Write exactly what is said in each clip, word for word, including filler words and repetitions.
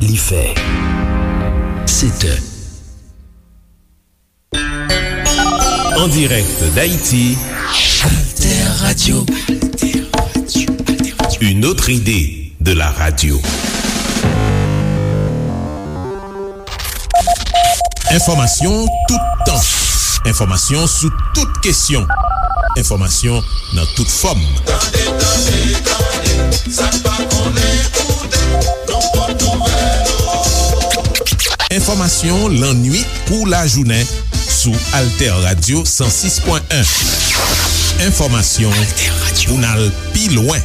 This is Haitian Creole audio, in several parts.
Li fè sèt è. En direct d'Haïti, Alter Radio. Une autre idée de la radio. Enfòmasyon toutan. Enfòmasyon sou tout kesyon. Enfòmasyon nan tout fòm. Tande, tande, tande, sa n pa konnen, koute, nou pot nouvèl yo. Enfòmasyon lannuit kou lajounen sou Alter Radio san sis pwen en. Enfòmasyon pou n al pi lwen.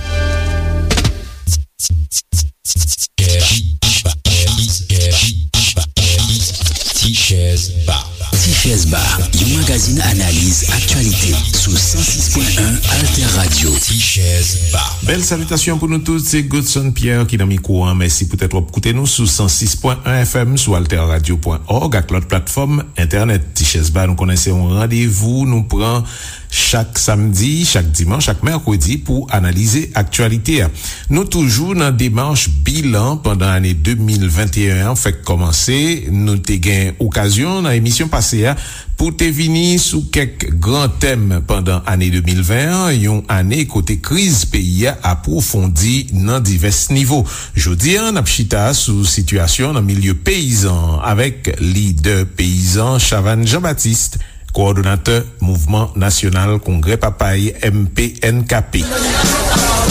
Ti Chèz Ba. Ti Chèz Ba, yon magazin analiz aktyalite sou san sis pwen en Alter Radio. Ti Chèz Ba. Bèl salitasyon pou nou tout, se Godson Pierre ki nan mikwo an. Mèsi poutèt w ap koute nou sou san sis pwen en F M, sou alter radio pwen org ak lòt platfòm entènèt. Ti Chèz Ba, nou konnen se yon randevou nou pran chak samdi, chak dimanch, chak mèkredi pou analize aktyalite a. Nou toujou nan demach bilan pandan ane de mil venteyen an fèk kòmanse. Nou te gen okazyon nan emisyon pase a pou te vini sou kèk gran tèm pandan ane de mil ven an, yon ane kote kriz peyi a apwofondi nan divès nivo. Jodi a, n ap chita sou sitiyasyon nan milye peyizan an avèk lidè peyizan Chavannes Jean-Baptiste, kowòdonatè Mouvman Nasyonal Kongrè Papay, M P N K P.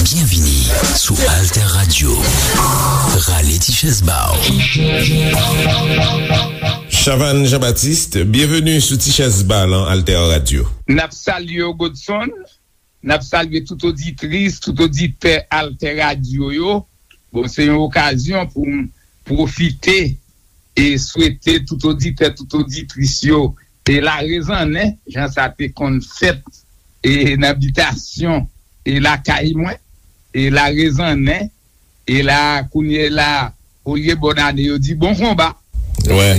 Byenvini sou Alter Radio. Rale ti chèz ba w. Chavannes Jean-Baptiste, byenveni sou Ti Chèz Ba lan Alter Radio. N ap salye w, Godson. N ap salye tout oditris, tout oditè Alter Radio yo. Bon, se yon okazyon pou m pwofite e swete tout oditè, tout oditris yo e larezannen, jan sa te konn fèt e nan bitasyon e lakay mwen, e larezannen, e la, kounye la, olye bòn ane, yo di bon konba. Wè.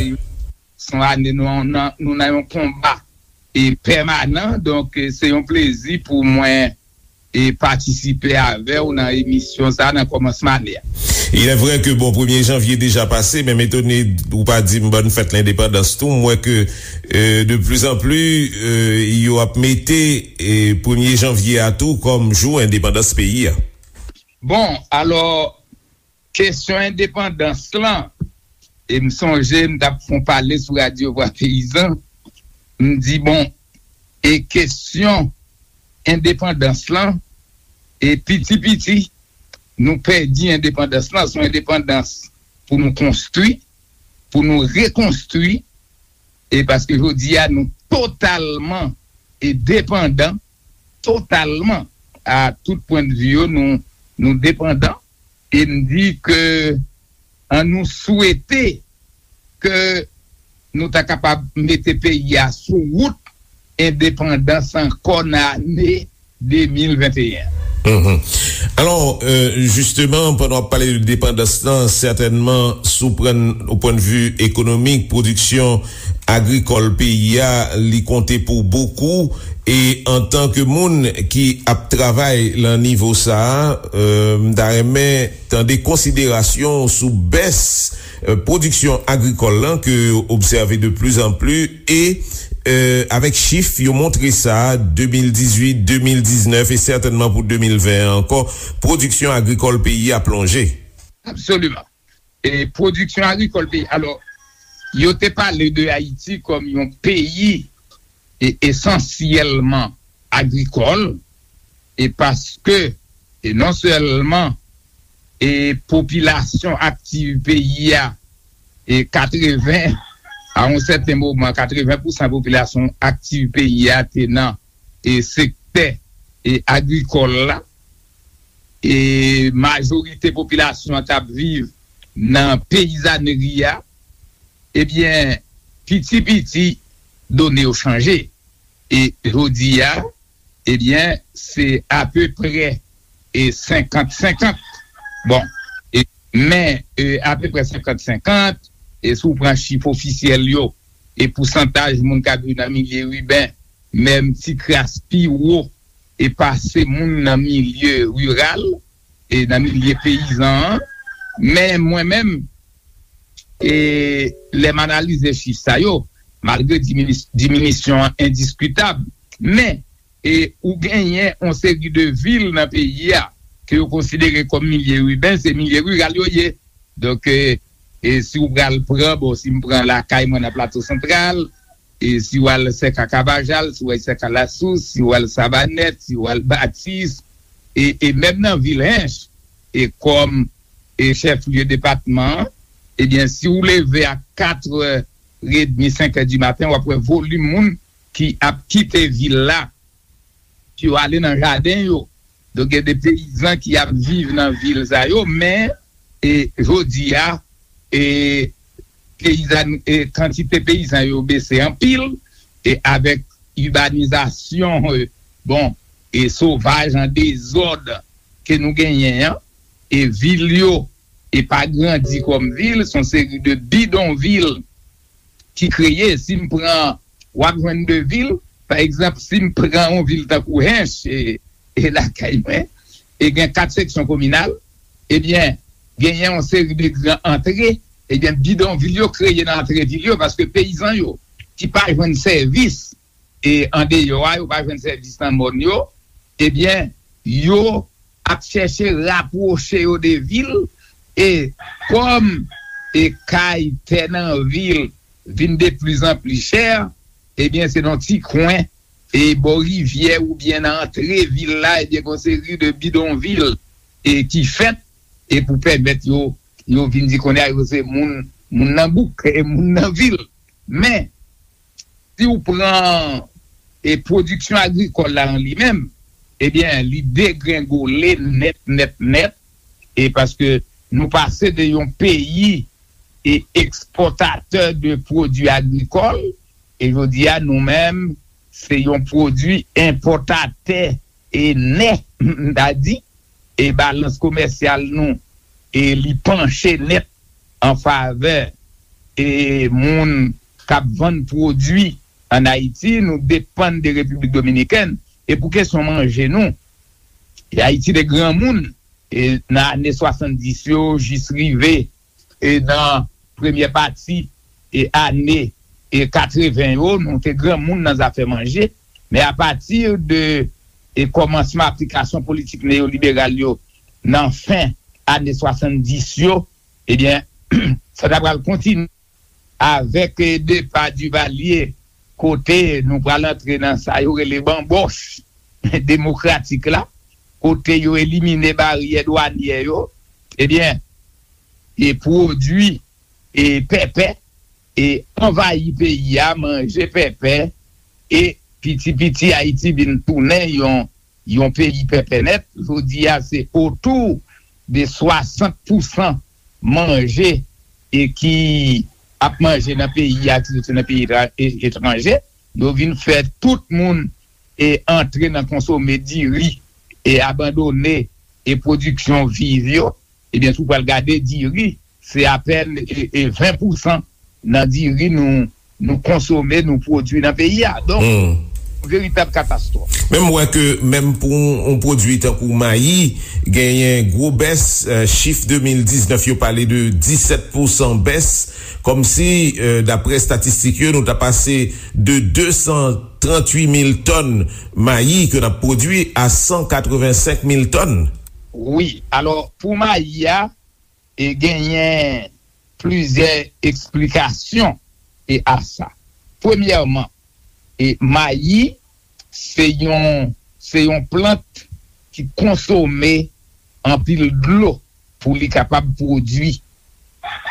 Se yon ane nou, nou, nou nan yon konba e pèmanan, donk, e se yon plezi pou mwen e patisipe avè w nan emisyon sa a nan kòmansman ane a. Il est vrai que, bon, premye janvye deja pase, men m etone ou pa di m bòn fèt lendepandans tou. M wè ke, euh, de plus en plus, euh, yo ap mete, euh, premye janvye a tou kòm jou endepandans peyi a. Bon, alò, kesyon endepandans lan, e m sonje m t ap fè yon pale sou Radyo Vwa Peyizan, m di, bon, e kesyon endepandans lan, e piti piti, nou pèdi endepandans lan, se yon endepandans pou nou konstwi, pou nou rekonstwi, e paske jodi a nou totalman e depandan, totalman, a tout pwennvi yo, nou, nou depandan, e m di ke an nou swete ke nou ta kapab mete peyi a sou wout endepandans ankò nan ane de mil venteyen. Mhm. Alò, euh, jisteman, pandan w ap pale de depandans lan, sètènman, si w pran o pwennvi ekonomik, pwodiksyon agrikòl peyi a, li konte pou bokou. E antanke moun ki ap travay lan nivo sa a, euh, m ta renmen tande konsiderasyon w sou bès, euh, pwodiksyon agrikòl lan ke yo obsève de plus en plus e, euh, avèk chif yo montre sa, de mil dizuit, de mil diznèf e sètènman pou de mil ven an ankò, pwodiksyon agrikòl peyi a plonje. Absoliman. E pwodiksyon agrikòl peyi, alò, yo te pale de Ayiti kòm yon peyi e esansyèlman agrikòl, e paske, e non sèlman, e popilasyon aktiv peyi a, e katreven, a yon sèten moman, katreven pousan popilasyon aktiv peyi a te nan, e sektè, e agrikòl la, e majorite popilasyon an t ap viv nan peyizanri a, ebyen, piti piti, done yo chanje. E jodi a, ebyen, se apeprè e senkant senkant. Bon, e, men, e, apeprè senkant senkant, e si w pran chif ofisyèl yo, e pousantaj moun k ap viv nan milye iben, menm ti kras pi wo, e pase moun nan milye riral, e nan milye peyizan an. Men mwen menm, e lè m analize chif sa yo, malgre diminis- diminisyon an endiskitab, men e ou genyen yon seri de vil nan peyi a ke yo konsidere kòm milye iben, se milye riral yo ye. Donk, e, e si w pral pran, bon, si m pran lakay mwen nan Plato Santral, e si w al Sèka Kavajal, si w al Sèka Lasous, si w al Savanèt, si w al Batis, e, e menm nan vil Hench, e kòm e chèf lye depatman an, ebyen, si w leve a katrè edmi, senk è di maten, w ap wè volim moun ki ap kite vil la, ki yo ale nan jaden yo. Donk, gen de peyizan ki ap viv nan vil sa yo, men, e, jodi a, e, peyizan, e, kantite peyizan yo bese anpil, e avèk ibanizasyon, e, bon, e sovaj an dezòd ke nou genyen an, e vil yo, e pa grandi kòm vil, se yon seri de bidonvil ki kreye. Si m pran, w ap jwenn de vil, pa egzanp, si m pran yon vil tankou Hench, e, e lakay mwen, e gen kat seksyon kominal, ebyen, genyen yon seri de gran antre, ebyen, bidonvil yo kreye nan antre vil yo, paske peyizan yo, ki pa jwenn sèvis, e andeyò a, yo pa jwenn sèvis nan mòn yo, ebyen, yo ap chèche rapwoche yo de vil, e kòm e kay, tè nan vil vin de plizanpli chè, ebyen, se nan ti kwen, e bò rivyè oubyen nan antre vil la, ebyen, gen yon seri de bidonvil, e ki fèt, e pou pèmèt yo, yo vin di kounye a yo se moun, moun nan bouk, e moun nan vil. Men, si w pran, e pwodiksyon agrikòl la an li menm, ebyen, li degrengole nèt, nèt, nèt, e paske nou pase de yon peyi e ekspòtatè de pwodui agrikòl, e jodi a, nou menm, se yon pwodui enpòtatè e nèt, m ta di, e balans komèsyal nou, e li panche nèt an favè e moun k ap vann pwodui ann Ayiti, nou depann de Repiblik Dominikèn. E pou kesyon manje nou, e Ayiti te granmoun, e nan ane swasanndis yo jis rive, e nan premyè pati, e ane, e katreven yo, nou te granmoun nan zafè manje. Men apati de, e kòmansman aplikasyon politik neyoliberal yo nan fen ane swasanndis yo, ebyen, sa ta pral kontinye avèk, e, depa Duvalier, kote nou pral antre nan sa yo rele banbòch demokratik la, kote yo elimine baryè dwanyè yo, ebyen, e pwodui, e pèpè, e anvayi peyi a, manje pèpè, e piti piti Ayiti vin tounen yon, yon peyi pèpè nèt. Jodi a, se otou de swasant pousan manje e ki ap manje nan peyi a, ki soti nan peyi etra- e- etranje. Yo vin fè tout moun e antre nan konsome diri e abandone e pwodiksyon viv yo. Ebyen, si w pral gade diri, se apèn e, e ven pousan nan diri nou, nou konsome, nou pwodui nan peyi a. Donk, hmm, veritab katastwòf. Men m wè ke menm pou yon, yon pwodui tankou mayi, genyen gwo bès, eh, chif de mil diznèf yo pale de disèt pousan bès, kòmsi, eh, daprè estatistik yo, nou ta pase de de san tranntuit mil tòn mayi ke n ap pwodui a san katrevensenk mil tòn. Wi, alò, pou mayi a, e genyen plizyè eksplikasyon e a sa. Premyèman, e mayi se yon, se yon plant ki konsome anpil dlo pou li kapab pwodui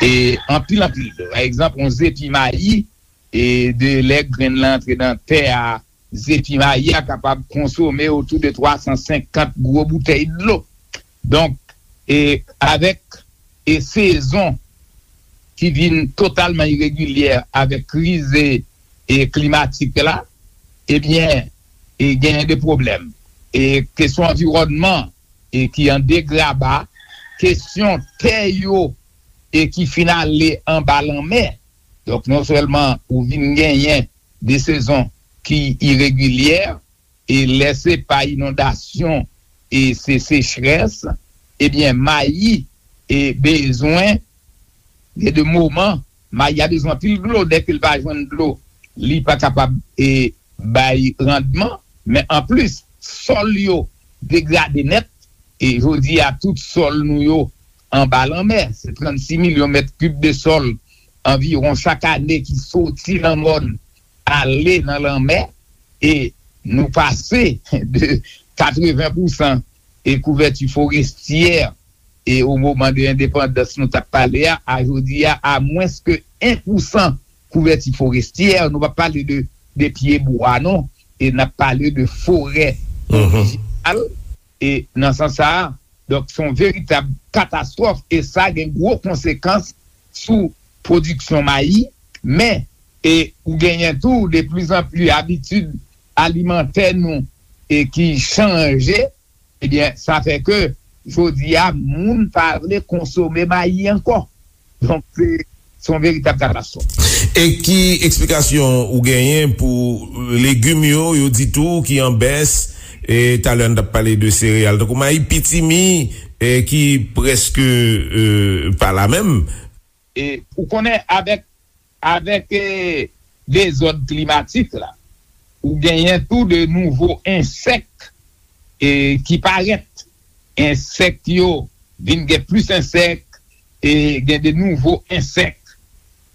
e anpil, anpil dlo. Pa egzanp, yon zepi mayi, e de lè grenn lan antre nan tè a, zepi mayi a kapab konsome otou de twa san senkant gwo boutèy dlo. Donk, e avèk e sezon ki vin totalman iregilyè avèk kriz e, e klimatik la, ebyen, e genyen de pwoblèm. E kesyon anviwònman e ki an degraba, kesyon tè yo e ki fin ale anba lanmè. Donk, non sèlman ou vin genyen de sezon ki iregilyè, e lè se pa inondasyon e se sechrès, ebyen, mayi e bezwen Gen de moman, mayi a bezwen anpil dlo, dèke l pa jwenn dlo, li pa kapab e, bay randman, men anplis, sòl yo degrade nèt, e jodi a tout sòl nou yo anba lanmè, se trannsis milyon mèt kib de sòl anviwon chak ane ki soti nan mòn ale nan lanmè, e nou pase de katreven pousan e kouvèti forestyè e o moman de endepandans nou t ap pale a, a jodi a, a mwens ke en pousan kouvèti forestyè, nou p ap pale de, de pye bwa non, e n ap pale de forè orijinal, e nan sans sa a, donk se yon veritab katastwòf, e sa gen gwo konsekans sou pwodiksyon mayi, men, e ou genyen tou de plizanpli abitid alimantè nou e ki chanje, ebyen, sa fè ke jodi a, moun pa vle konsome mayi ankò. Donk, se, se yon veritab katastwòf. E ki eksplikasyon ou genyen pou legim yo, yo di tou ki an bès, e talè n t ap pale de sereyal, tankou mayi, pitimi, e ki prèske e, pa la menm? E ou konnen, avèk, avèk e, dezòd klimatik la, ou genyen tou de nouvo ensèk e, ki parèt. Ensèk yo vin gen plis ensèk e gen de nouvo ensèk.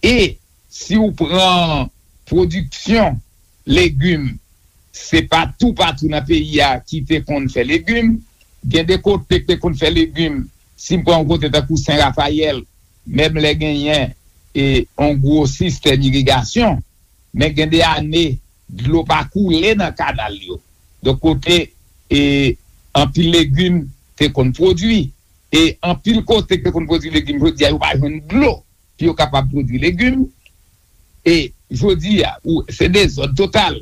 E si w pran pwodiksyon legim, se pa toupatou nan peyi a ki te konn fè legim. Gen de kote ki te konn fè legim, si m pran yon kote tankou Sen Rafayèl, menm lè genyen e, yon gwo sistèm irigasyon, men gen de ane, dlo pa koule nan kanal yo. Donk, kote e, anpil legim te konn pwodui, e anpil kote ki te konn pwodui legim, jodi a, yo pa jwenn dlo pou yo kapab pwodui legim. E jodi a, ou, se dezòd total.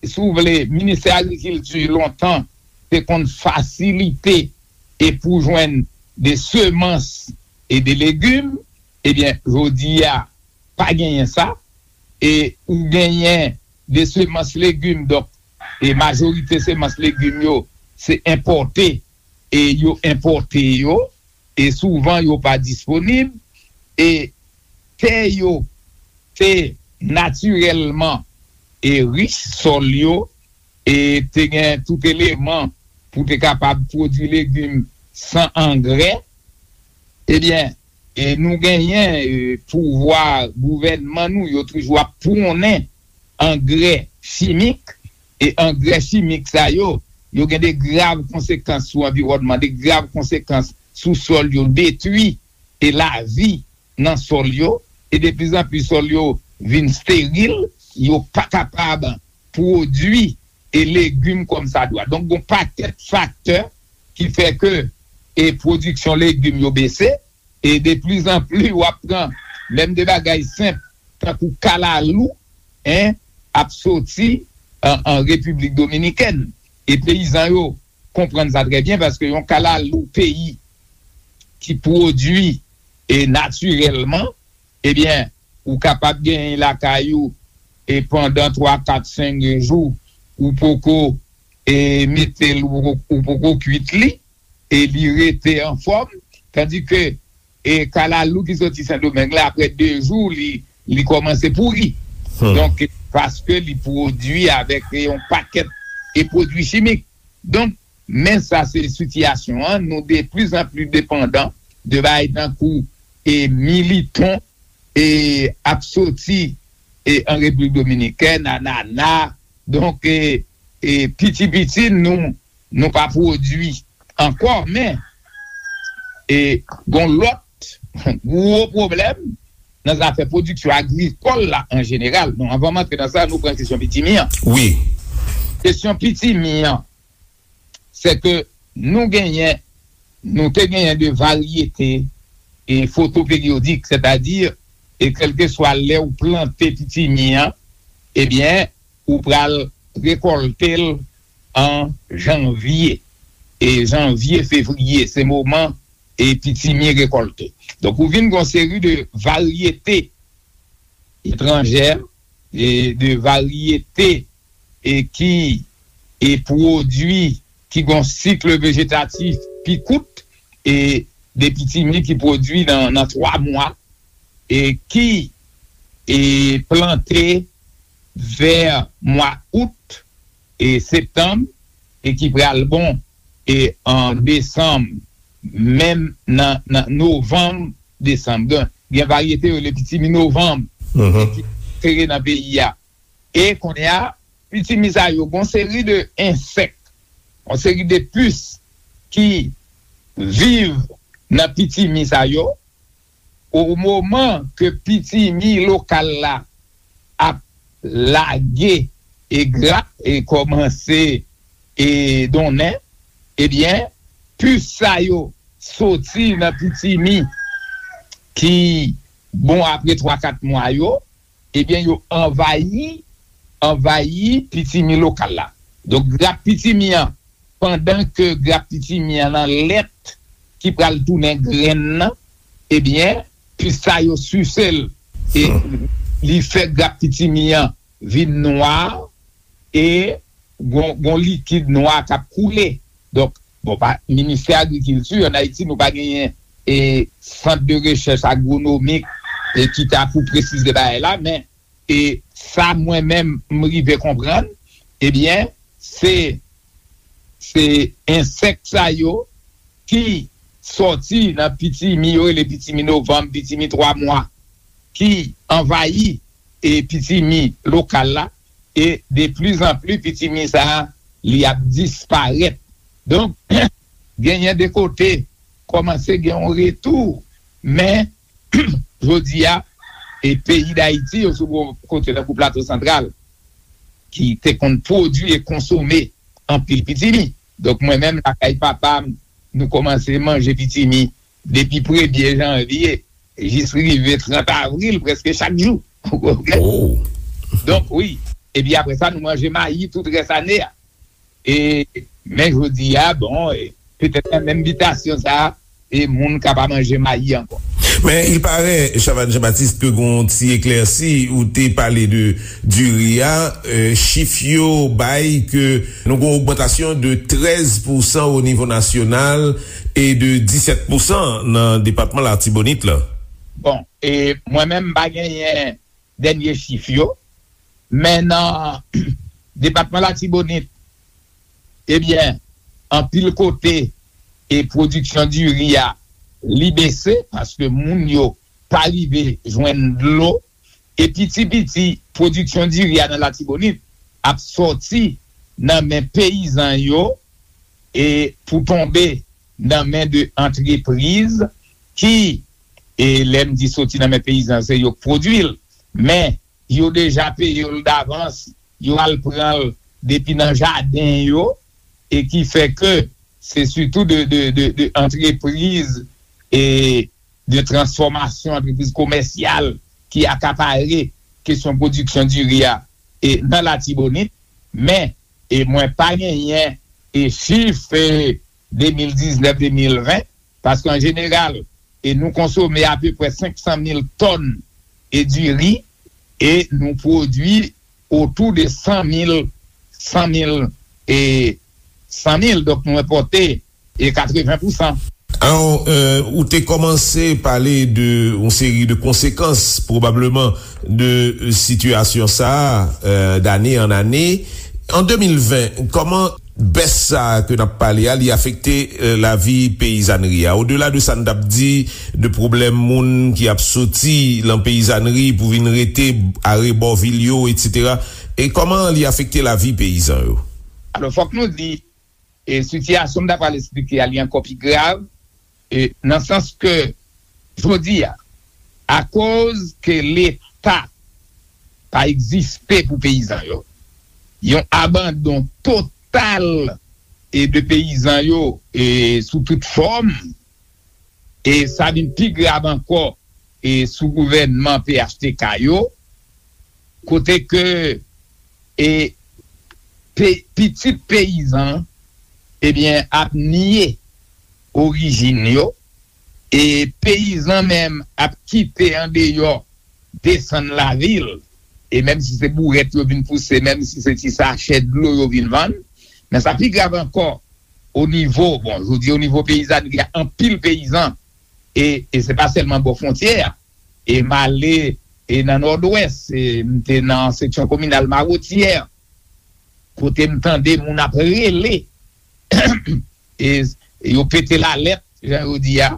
Si w vle, Ministè Agrikilti lontan te konn fasilite e pou jwenn de semans e de legim, ebyen, jodi a, pa genyen sa. E ou genyen de semans legim, donk, e majorite semans legim yo, se enpòte, e yo enpòte yo, e souvan yo pa disponib, e tè yo te natirèlman e rich, sòl yo, e te gen tout eleman pou te kapab pwodui legim san angrè, ebyen, e nou genyen e, pouvwa gouvènman nou, yo toujou ap pwonnen angrè chimik, e angrè chimik sa yo, yo gen de grav konsekans sou anviwònman, de grav konsekans sou sòl yo, detwi e lavi nan sòl yo, e de plis an plis sòl yo vin steril, yo pa kapab pwodui e legim kòmsadwa. Donk, gon pakèt faktè ki fè ke e pwodiksyon legim yo bese, e de plis an plis w ap pran menm de bagay senp, tankou kalalou, en, ap soti an, an Repiblik Dominikèn. E peyizan yo konprann sa trè byen, paske yon kalalou peyi ki pwodui e natirèlman, ebyen, ou kapab genyen lakay ou, e pandan twa, kat, senk jou, ou poko e mete l, ou poko, ou poko kwit li, e li rete anfòm, tandike e kalalou ki soti Sendomeng la, apre de jou, li, li kòmanse pouri. Donk, paske li pwodui avèk e yon pakèt e pwodui chimik. Donk, men sa se sitiyasyon an, nou de plis an plis depandan de bagay tankou e militon e ap soti e an Repiblik Dominikèn, anana, donk e, e piti piti nou, nou pa pwodui ankò, men e gon lòt gwo pwoblèm nan zafè pwodiksyon agrikòl la an jeneral. Bon, anvan m antre nan sa, nou pran kesyon pitimi an. Wi. Kesyon pitimi an, se ke nou genyen, nou te genyen de varyete e fotoperiyodik, sètadi, e kèlkeswa lè ou plante pitimi an, ebyen, ou pral rekòlte l an janvye. E janvye, fevriye, se moman e pitimi rekòlte. Donk, ou vin gon seri de varyete etranjè, e de varyete e ki e pwodui ki gon sik vejetatif pi kout, e de pitimi ki pwodui nan, nan twa mwa, e ki e plante vè mwa out e septanm, e ki pral bon e an desanm, menm nan, nan novanm, desanm. Gen, gen varyete yo rele pitimi novanm, e ki sere nan peyi a. E kounye a, pitimi sa yo, gon seri de ensèk, yon seri de pis ki viv nan pitimi sa yo, o moman ke pitimi lokal la ap lage e grap e kòmanse e donnen, ebyen, pis sa yo soti nan pitimi ki bon apre twa kat mwa yo, ebyen, yo anvayi, anvayi pitimi lokal la. Donk, grap pitimi an, pandan ke grap pitimi an nan lèt ki pral tounen grenn nan, ebyen, pis sa yo sise l. E li fè grap pitimi an vin nwa, e gon, gon likid nwa k ap koule. Donk, bon, pa, Ministè Agrikilti, ann Ayiti, nou pa genyen e sant de rechèch agwonomik e ki ta pou presize bagay la, men e sa mwen menm m rive konprann, ebyen, se, se ensèk sa yo ki sòti nan pitimi, yo rele pitimi novanm, pitimi twa mwa, ki anvayi e pitimi lokal la, e de pli zan pli pitimi sa a, li ap disparèt. Donk, genyen de kote kòmanse gen yon retou, men jodi a, e peyi Dayiti, yo sou bon kote tankou Plato Santral, ki te konn pwodui e konsome anpil pitimi. Donk, mwen menm, lakay papa m, nou kòmanse manje pitimi depi premye janvye jis rive trant avril, prèske chak jou. Ou konprann? Donk, wi. Epi apre sa, nou manje mayi tout rès ane a. E, men jodi a, bon, e, petèt nan menm bitasyon sa a, e moun ka pa manje mayi ankò. Men, il paraît, Chavannes Jean-Baptiste, ke gon ti eklèsi, ou te pale de diri a, e, chif yo bay ke nou gon ogmantasyon de trèz pousan o nivo nasyonal e de disèt pousan nan depatman Latibonit la. Bon, e mwen menm, m pa genyen dènye chif yo, men nan depatman Latibonit, ebyen, anpil kote, e pwodiksyon diri a, li bese, paske moun yo pa rive jwenn dlo, e piti piti, pwodiksyon diri a nan Latibonit ap sòti nan men peyizan yo, e pou tonbe nan men de antrepriz ki, e lè m di soti nan men peyizan, se yo k pwodui l, men yo deja peye l davans, yo al pran l depi nan jaden yo, e ki fè ke se sitou de, de, de, de antrepriz e de transfòmasyon, antrepriz komèsyal ki akapare kesyon pwodiksyon diri a e nan Latibonit, men e mwen pa genyen e chif e de mil diznèf, de mil ven, paske an jeneral, e nou konsome apeprè senk san mil tòn e diri, e nou pwodui otou de san mil, san mil e san mil, donk nou enpòte e katreven pousan. Alò, euh, ou te kòmanse pale de yon seri de konsekans, pwobableman, de sitiyasyon sa a, euh, d'année en année. An de mil ven, kòman bès sa a ke n ap pale a, li afekte, euh, lavi peyizanri a? Odela de sa n t ap di, de pwoblèm moun ki ap soti lan peyizanri pou vin rete arebò vil yo, etsetera. E kòman li afekte lavi peyizan yo? Alò, fòk nou di, e sitiyasyon m ta pral esplike a, li ankò pi grav, e nan sans ke, jodi a, akoz ke Leta pa egziste pou peyizan yo, yon abandon total e de peyizan yo e sou tout fòm, e sa vin pi grav ankò e sou gouvènman P H T K yo, kote ke e pe, pitit peyizan, ebyen, ap nye orijin yo, e peyizan menm ap kite andeyò, desann lavil, e menm si se bourèt yo vin pouse, menm si se ti sachè dlo yo vin vann, men sa pi grav ankò, o nivo, bon, jodi o nivo peyizanri a, anpil peyizan, e, e se pa sèlman bò fwontyè a, E m ale e nan Nòdwès, e m te nan seksyon kominal Mawotyè, kote m tande moun ap rele, e yo pete lalèt, jan yo di a.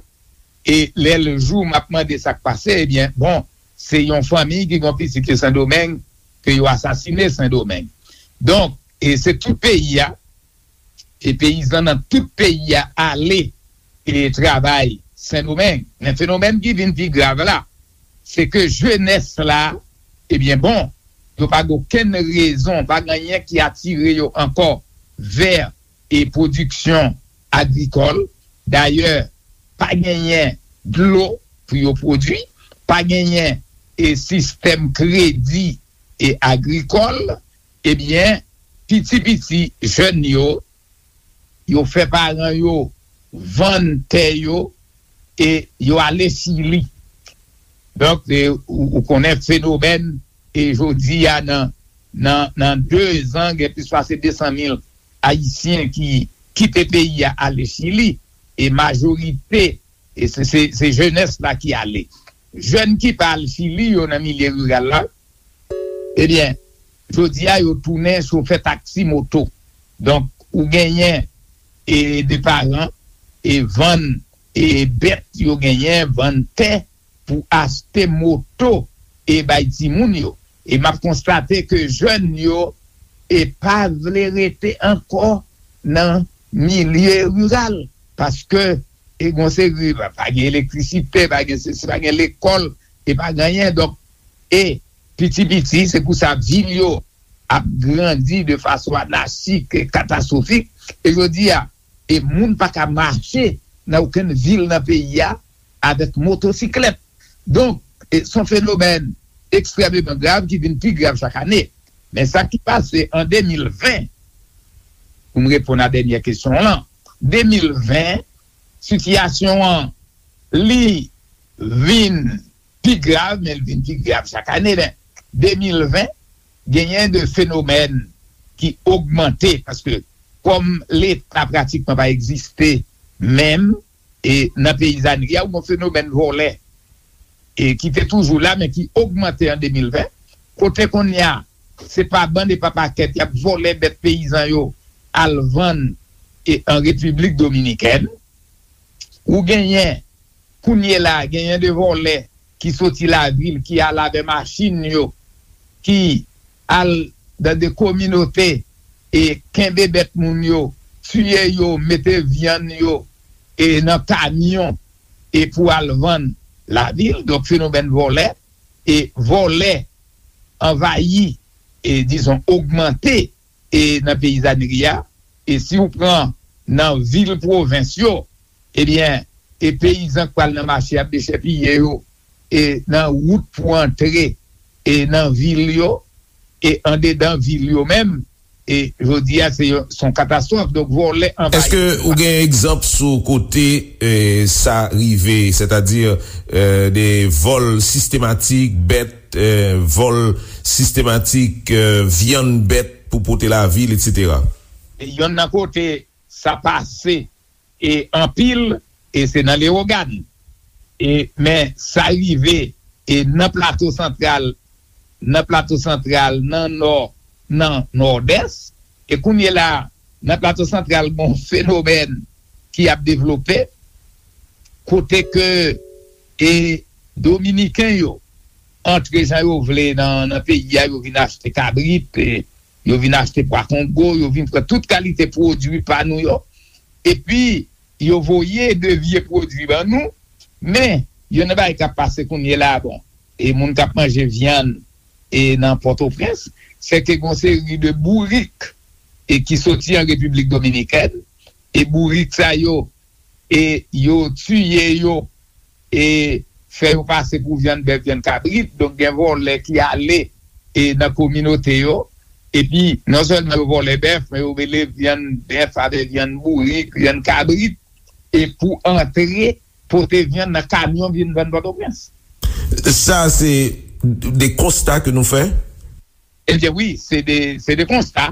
E lè l jou, m ap mande sa k pase, ebyen, bon, se yon fanmi ki gen yon pitit yo Sendomeng, ke yo asasine Sendomeng. Donk, e se tout peyi a, e peyizan nan tout peyi a ale e travay Sendomeng. Men fenomèn ki vin pi grav la, se ke jenès la, ebyen bon, yo pa gen okenn rezon, pa gen anyen ki atire yo ankò vè e pwodiksyon agrikòl. Dayè, pa genyen dlo pou yo pwodui, pa genyen e sistèm kredi e agrikòl, ebyen, piti piti jèn yo, yo fè paran yo vann tè yo e yo ale Chili. Donk, e, ou, ou konnen fenomèn, e jodi a nan, nan, nan de zan, gen plis pase de san mil Ayisyen ki kite peyi a ale Chili, e majorite, e se, se, se jenès la ki ale. Jèn ki pa al Chili yo nan milye riral la, ebyen, jodi a yo tounen chofè taksi moto. Donk, ou genyen e de paran e vann e bèt yo genyen, vann tè pou achte moto e bay timoun yo. E m ap konstate ke jèn yo e pa vle rete ankò nan milye riral, paske e gon seri, pa, pa gen elektrisite, pa gen sesi, pa gen lekòl, e pa gen anyen. Donk, e piti piti, se pou sa vil yo ap grandi de fason anachik e katastwofik. E jodi a, e moun pa ka mache nan okenn vil nan peyi a avèk motosiklèt. Donk, e se yon fenomèn ekstrèmeman grav ki vin pi grav chak ane. Men sa ki pase an de mil ven, pou m reponn a dènyè kesyon w lan, de mil ven, sitiyasyon an, li vin pi grav, men l vin pi grav chak ane. Men de mil ven, genyen de fenomèn ki ogmante, paske kòm Leta pratikman pa egziste menm, e nan peyizanri a, ou gen fenomèn vòlè, e ki te toujou la, men ki ogmante an de mil ven, kote kounye a, se pa bann e pa pakèt, y ap vòlè bèt peyizan yo, al vann e an Repiblik Dominikèn. Ou genyen, kounye la, genyen de vòlè ki soti lavil, ki al avè machin yo, ki al nan de kominote e kenbe bèt moun yo, tiye yo, mete vyann yo e nan kamyon e pou al vann lavil. Donk, fenomèn vòlè, e vòlè anvayi, e dizon, ogmante e nan peyizanri a. E si w pran nan vil pwovens yo, ebyen, e peyizan k pral nan mache ap dechèpiye yo, e nan wout pou antre e nan vil yo, e andedan vil yo menm, e jodi a se yon, se yon katastwòf. Donk, vòlè anvayi. Èske ou gen egzanp sou kote, e, sa rive, sètadi, e, de vòl sistematik bèt, e, vòl sistematik, e, vyann bèt pou pote lavil, etsetera? E yonn nan kote sa pase, e anpil, e se nan Lewogàn. E, men sa rive, e nan Plato Santral, nan Plato Santral, nan Nò, nan Nòdès. E kounye la, nan Plato Santral, gon fenomèn ki ap devlope, kote ke, e Dominiken yo antre jan yo vle nan, nan peyi a, yo vin achte kabrit, e yo vin achte pwa kongo, yo vin pran tout kalite pwodui pa nou yo. Epi, yo voye de vye pwodui ban nou, men, youn nan bagay k ap pase kounye la, bon, e moun k ap manje vyann, e nan Pòtoprens, se ke gon seri de bourik, e ki soti an Repiblik Dominikèn, e bourik sa yo, e yo tiye yo, e fè yo pase pou vyann bèf, vyann kabrit. Donk, gen vòlè ki ale, e nan kominote yo, epi non sèlman yo vòlè bèf, men yo mele vyann bèf avè vyann bourik, vyann kabrit, e pou antre pote vyann nan kamyon vin vann Pòtoprens. Sa se de konsta ke nou fè? Ebyen wi, se de, se de konsta.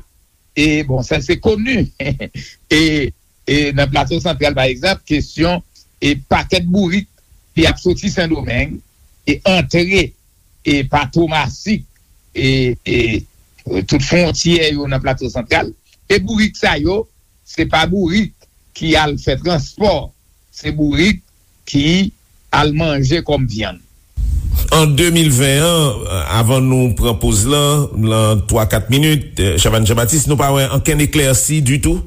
E bon, sa se koni. E, e nan Plato Santral, pa egzanp, kesyon e pakèt bourik ki ap soti Sendomeng, e antre e pa Tomasik e, e tout fwontyè yo nan Plato Santral. E bourik sa yo, se pa bourik ki al fè transpò, se bourik ki al manje kòm vyann. An de mil ven an, avan nou pran poz lan, lan twa kat minit, Chavannes Jean-Baptiste, nou pa wè ankenn eklèsi ditou?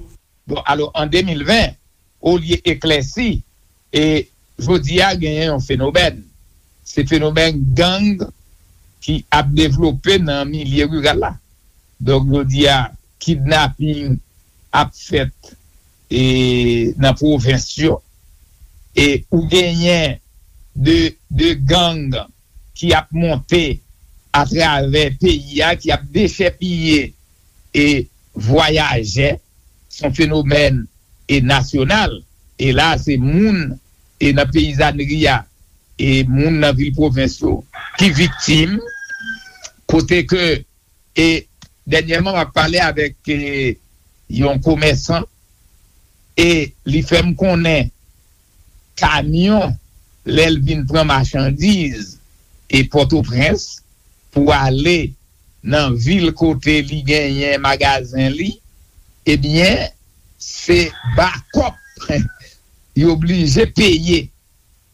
Bon, alò, an de mil ven, olye eklèsi, e jodi a genyen yon fenomèn. Se fenomèn gang ki ap devlope nan milye riral la. Donk, jodi a, kidnaping ap fèt e nan pwovens yo. E ou genyen de, de gang ki ap monte atravè peyi a, ki ap dechèpiye e vwayajè. Se yon fenomèn e nasyonal. E la, se moun e nan peyizanri a, e moun nan vil pwovens yo ki viktim, kote ke, e dènyèman, m ap pale avèk e, yon komèsan, e li fè m konnen kamyon, lè l vin pran machandiz e Pòtoprens pou ale nan vil kote li genyen magazen li, ebyen, se bakòp yo oblije peye.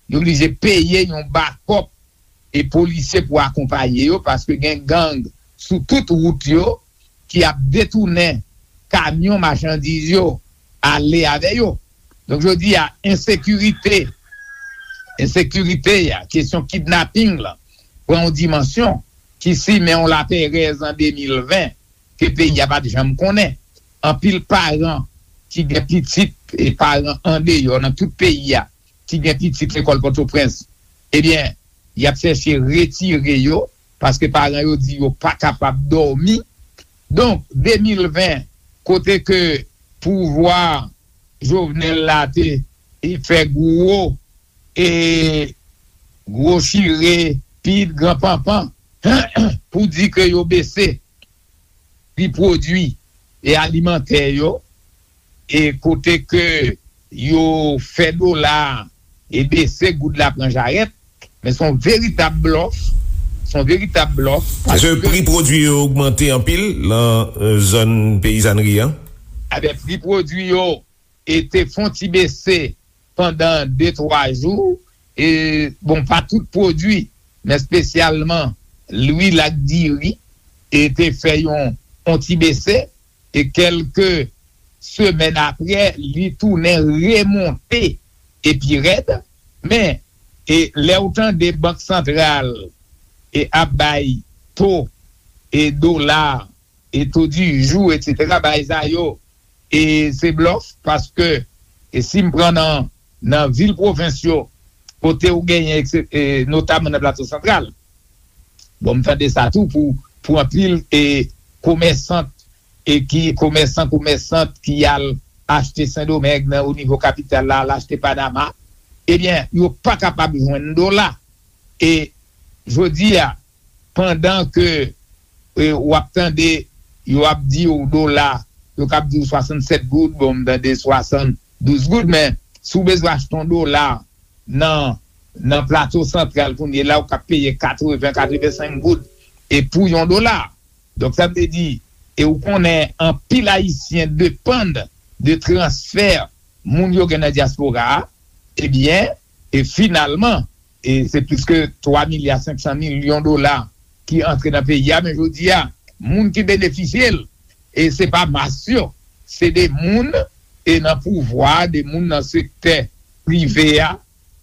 Yo oblije peye yon bakòp e polisye pou akonpaye yo, paske gen gang sou tout wout yo ki ap detounen kamyon machandiz yo ale avè yo. Donk, jodi a, ensekirite, ensekirite a, kesyon kidnaping lan, pran yon dimansyon ki simen yon laperèz an de mil ven ke peyi a pa t janm konnen. Anpil paran ki gen pitit e paran andeyò nan tout peyi a, ki gen pitit lekòl Pòtoprens, ebyen, y ap chèche retire yo, paske paran yo di yo pa kapab dòmi. Donk, de mil ven, kote ke pouvwa Jovenel la te, e fè gwo, e gwo chire, pit, gran panpan, pou di ke yo bese pri pwodui e alimantè yo, e kote ke yo fè dola a e bese, goud la pran jarèt, men se yon veritab blòf, se yon veritab blòf. Paske pri pwodui yo ogmante anpil lan, e, zòn peyizanri an. Ebyen, pri pwodui yo e te fon ti bese pandan de, twa jou, e, bon, pa tout pwodui, men espesyalman lwil ak diri, e te fè yon, yon ti bese, e kèlke semèn apre, li tounen remonte e pi rèd, men, e lè w tande Bank Santral e ap bay to e dola e to di jou, etsetera, bagay sa yo, e se blòf, paske, e si m pran nan, nan vil pwovens yo, kote ou genyen, ekse-, e, notaman nan Plato Santral, bon, m tande sa tou pou, pou anpil, e, komèsant, e ki, komèsan, komèsant ki al achte Sendomeng nan, o nivo kapital la, al achte Panama, ebyen, yo pa kapab jwenn dola. E jodi a, pandan ke, e, w ap tande, yo ap di w dola, yo k ap di w swasannsèt goud, bon, m tande swasanndouz goud, men si w bezwen achte yon dola nan, nan Plato Santral kounye la, ou k ap peye katreven, katrevensenk goud, e pou yon dola. Donk, sa vle di, e ou konnen anpil Ayisyen depann de transfè moun yo gen nan dyaspora a, ebyen, e finalman, e se plis ke twa milya senk san milyon dola ki antre nan peyi a, men jodi a, moun ki benefisye l, e se pa mas yo, se de moun, e nan pouvwa, de moun nan sektè prive a,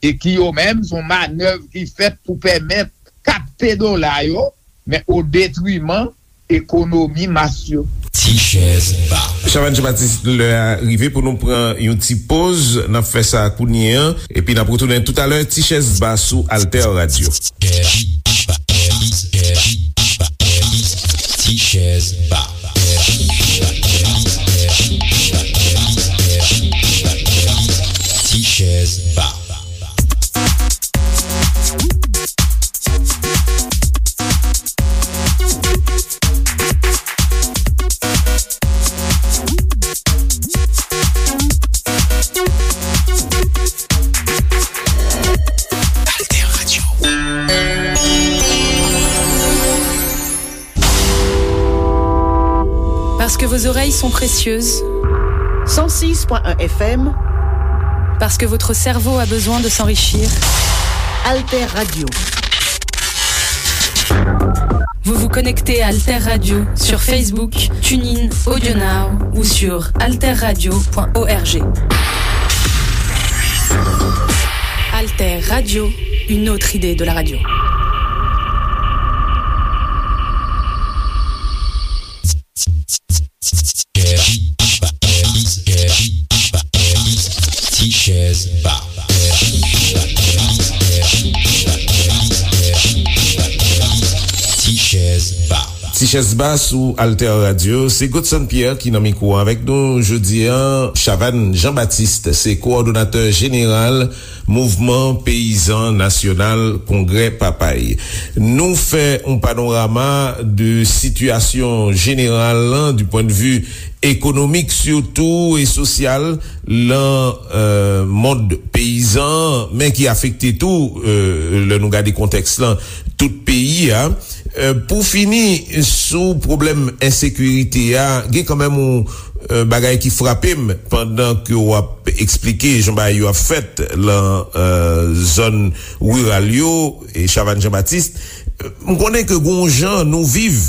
e ki yo menm, se yon manèv ki fèt pou pèmèt kapte dola yo, men o detriman ekonomi mas yo. Ti chèz ba. Chavannes Jean-Baptiste, lè a rive pou nou pran yon ti poz. N ap fè sa kounye a, epi n ap retounen toutalè. Ti chèz ba sou Alter Radio. Ti chèz ba. Ti chèz ba. Alter Radio. Parce que vos oreilles sont précieuses. Cent six point un F M. Parce que votre cerveau a besoin de s'enrichir. Alter Radio. Vous vous connectez à Alter Radio sur Facebook, TuneIn, AudioNow ou sur alterradio point org. Alter Radio, une autre idée de la radio. Tichèz Ba. Tichèz Ba. Tichèz Ba sou Alter Radio. Se Godson Pierre ki nan mikwo avèk nou jodi a. Chavannes Jean-Baptiste se kowòdonatè jeneral Mouvman Peyizan Nasyonal Kongrè Papay. Nou fè yon panorama de sitiyasyon jeneral lan, du point de vue économique surtout et social, lan euh, mond peyizan, men ki afekte tou euh, lè nou gade kontèks lan tout peyi a. Euh, pou fini sou pwoblèm ensekirite a, gen kanmenm yon euh, bagay ki frape m pandan ke w ap eksplike jan bagay yo ap fèt lan euh, zòn riral yo e Chavannes Jean-Baptiste. M konnen ke gon jan nou viv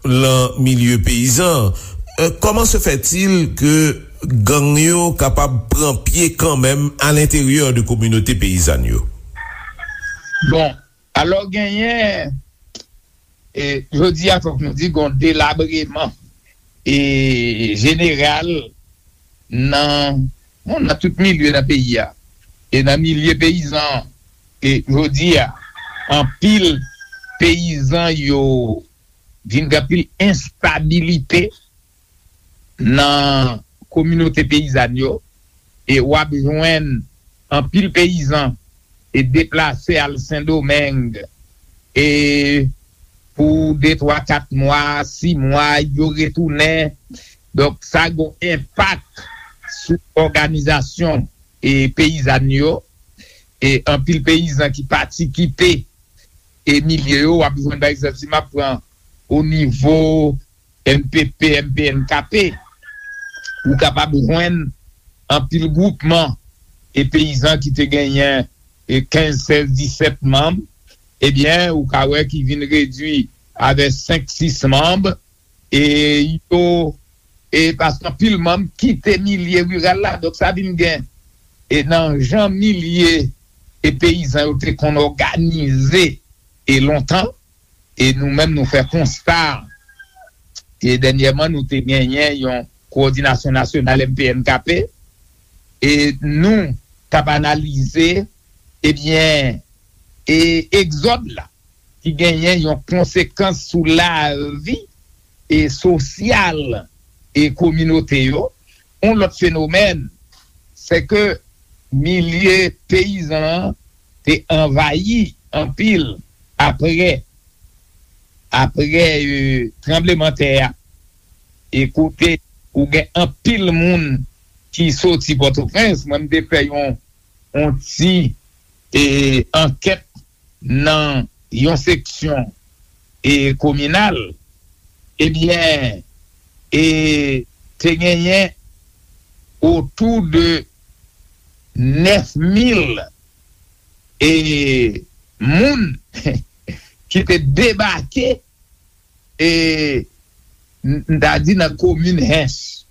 lan milye peyizan. Euh, comment se fait-il que gang yo kapab pran pye kanmenm a lenteryè de kominote peyizàn yo? Bon, alò genyen e jodi a fòk nou di gon delabreman e jeneral nan bon, nan tout milye nan peyi a e nan milye peyizan e jodi a anpil peyizan yo vin gen anpil enstabilite nan kominote peyizàn yo e w ap jwenn anpil peyizan e deplase al Sendomeng e pou de twa kat mwa, sis mwa yo retounen. Donk sa gen yon enpak sou òganizasyon e peyizàn yo e anpil peyizan ki pati kite e milye yo w ap jwenn pa egzanp si m ap pran o nivo N P P, N P N K P, ou kapab jwenn anpil gwoupman e peyizan ki te genyen e kenz, sèz, disèt manm, ebyen, ou ka wè ki vin redui avè senk, sis manm, e yo, e paske anpil manm kite milye riral la, donk sa vin gen, e nan jan milye e peyizan yo te konn òganize e lontan, e nou menm nou fè konsta e dènyèman nou te genyen yon kowòdinasyon nasyonal M P N K P e nou t ap analize ebyen e egzòd la ki genyen yon konsekans sou lavi e sosyal e kominote yo. Yon lòt fenomèn se ke milye peyizan an te anvayi anpil apre apre tranblemanntè a e kote ou gen anpil moun ki soti Pòtoprens. Mwen m te fè yon yon ti e ankèt nan yon seksyon e kominal, ebyen e te genyen otou de nèf mil e moun ki te debake e m ta di nan komin Hench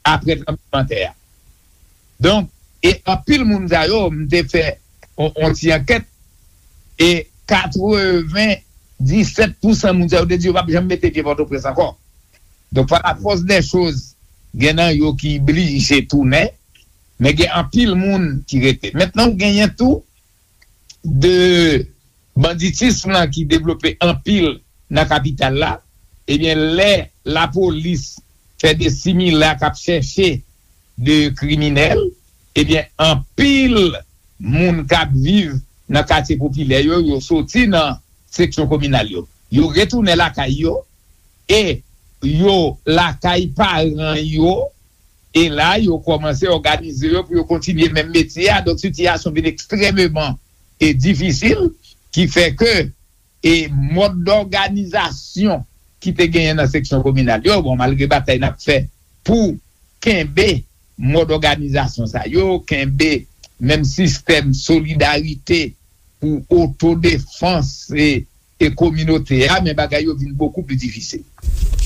apre tranblemanntè a. Donk, e anpil moun sa yo, m te fè yon ti ankèt e katreven disèt pousan moun sa yo te di yo p ap janm mete pye Pòtoprens ankò. Donk, pa la fòs dè choz, gen nan yo ki blije tounen, men gen anpil moun ki rete. Mentnan, ou genyen tou de banditis lan ki devlope anpil nan kapital la, ebyen lè lapolis fè de simila k ap chèche de kriminèl, ebyen anpil moun k ap viv nan katye popilè yo, yo soti nan seksyon kominal yo. Yo retounen lakay yo e yo lakay paran yo e la yo kòmanse òganize yo pou yo kontinye menm metye a. Donk sitiyasyon vin ekstrèmeman e difisil ki fè ke e mòd dòganizasyon ki te genyen nan seksyon kominal yo. Bon, malgre batay n ap fè pou kenbe mòd òganizasyon sa yo, kenbe menm sistèm solidarite pou otodefans e, e kominote a, men bagay yo vin bokou pli difisil.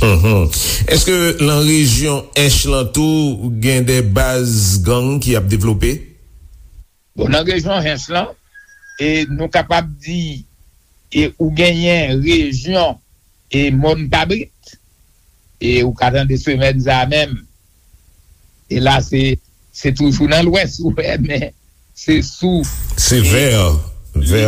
Mhm. Èske nan rejyon Ench lan tou gen de baz gang ki ap devlope? Bon, nan rejyon Ench lan, e nou kapab di, e ou genyen rejyon e Mòn Kabrit, e ou ka tande semèn sa a menm, e la se se toujou nan lwès ou wè, men se sou Se vè, vè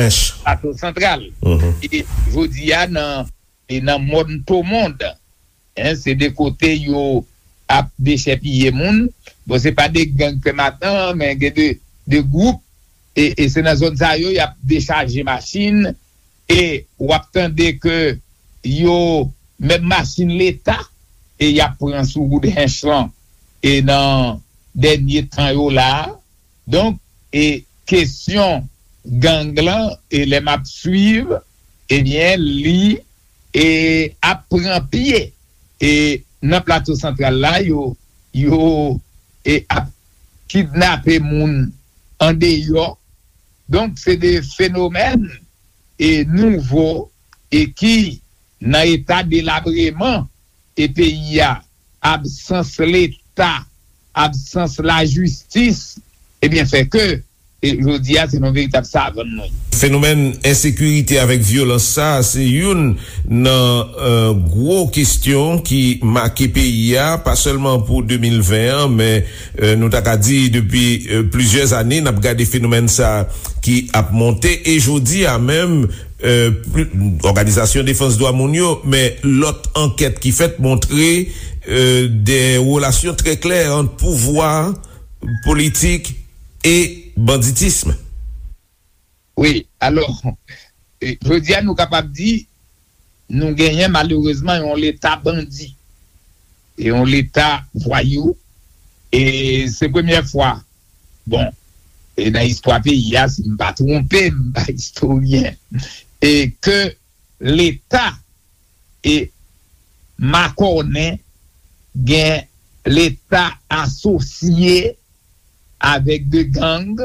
Ench. Plato Santral. Mhm. E jodi a nan e nan Mòn Tomond, en, se de kote yo ap dechèpiye moun. Bon, se pa de gang pèmanan, men gen de, de gwoup, e, e se nan zòn sa yo y ap dechaje machin, e w ap tande ke yo, menm machin Leta, e y ap pran sou wout Ench lan, e nan dènye tan yo la a. Donk, e kesyon gang lan, e lè m ap swiv, ebyen, li e ap pran pye. E nan Plato Santral la, yo, yo e ap kidnape moun andeyò. Donk, se de fenomèn e nouvo e ki nan eta delabreman e peyi a, absans Leta, absans lajistis, ebyen, fè ke e jodi a se yon veritab savann nou ye. Fenomèn ensekirite avèk vyolans sa, se youn nan, euh, gwo kesyon ki make peyi a, pa sèlman pou de mil ven an, men, euh, nou ta ka di depi, euh, plizyè ane, n ap gade fenomèn sa ki ap monte, e jodi a menm, euh, pli- Òganizasyon Defans Dwa Moun yo, men lòt ankèt ki fèt montre, euh, de relasyon trè klè ant pouvwa, politik e banditism. Wi, alò, e, jodi a nou kapab di, nou genyen malerezman yon Leta bandi, e yon Leta vwayou, e se premyè fwa, bon, e nan istwa peyi a, si m pa twonpe, m pa istoryen, e ke Leta e makònen, gen Leta asosye avèk de gang,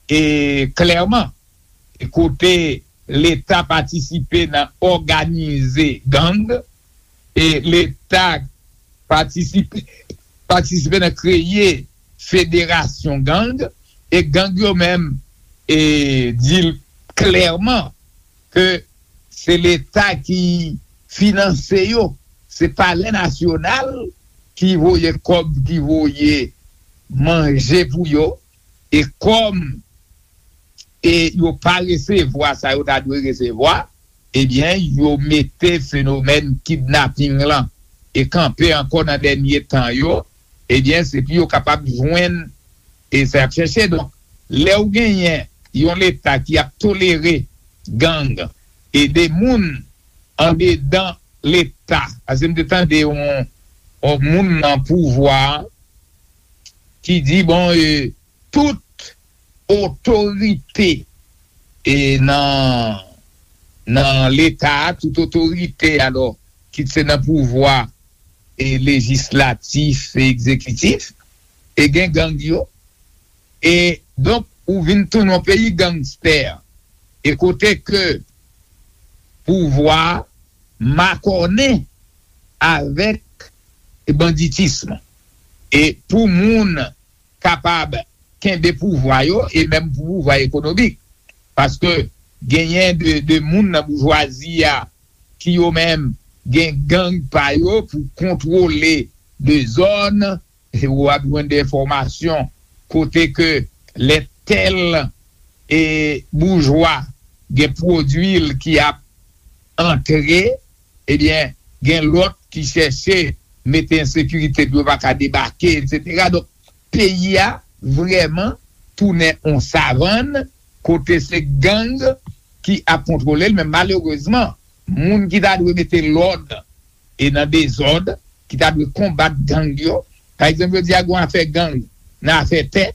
e klèman, e kote Leta patisipe nan òganize gang, e Leta patisipe, patisipe nan kreye federasyon gang, e gang yo menm, e di l klèman ke se Leta ki finanse yo, se Palè Nasyonal ki voye kòb, ki voye manje pou yo, e kòm e yo pa resevwa sa yo ta dwe resevwa, ebyen, yo mete fenomèn kidnaping lan e kanpe ankò nan dènye tan yo, ebyen, se pou yo kapab jwenn e sa y ap chèche. Donk, lè w genyen yon Leta ki ap tolere gang e de moun andedan Leta, paske m te tande yon, yon moun nan pouvwa a ki di, bon, e, tout otorite e nan, nan Leta a, tout otorite, alò, kit se nan pouvwa e lejislatif e egzekitif, e gen gang yo. E donk, ou vin tounen yon peyi gangstè. E kote ke pouvwa makònen avèk banditism. E pou moun kapab kenbe pouvwa yo, e menm pou pouvwa ekonomik. Paske genyen de, de moun nan boujwazi a ki yo menm gen gang pa yo pou kontwole de zòn, e w ap jwenn de enfòmasyon kote ke lè tèl e boujwa gen pwodui l ki ap antre, ebyen, gen lòt ki chèche mete ensekirite pou yo pa ka debake, etsetera. Donk, peyi a vrèman tounen yon savann kote se gang ki ap kontwole l, men malerezman, moun ki ta dwe mete lòd e nan dezòd, ki ta dwe konbat gang yo. Pa egzanp, yo di a gen afè gang nan afè tè,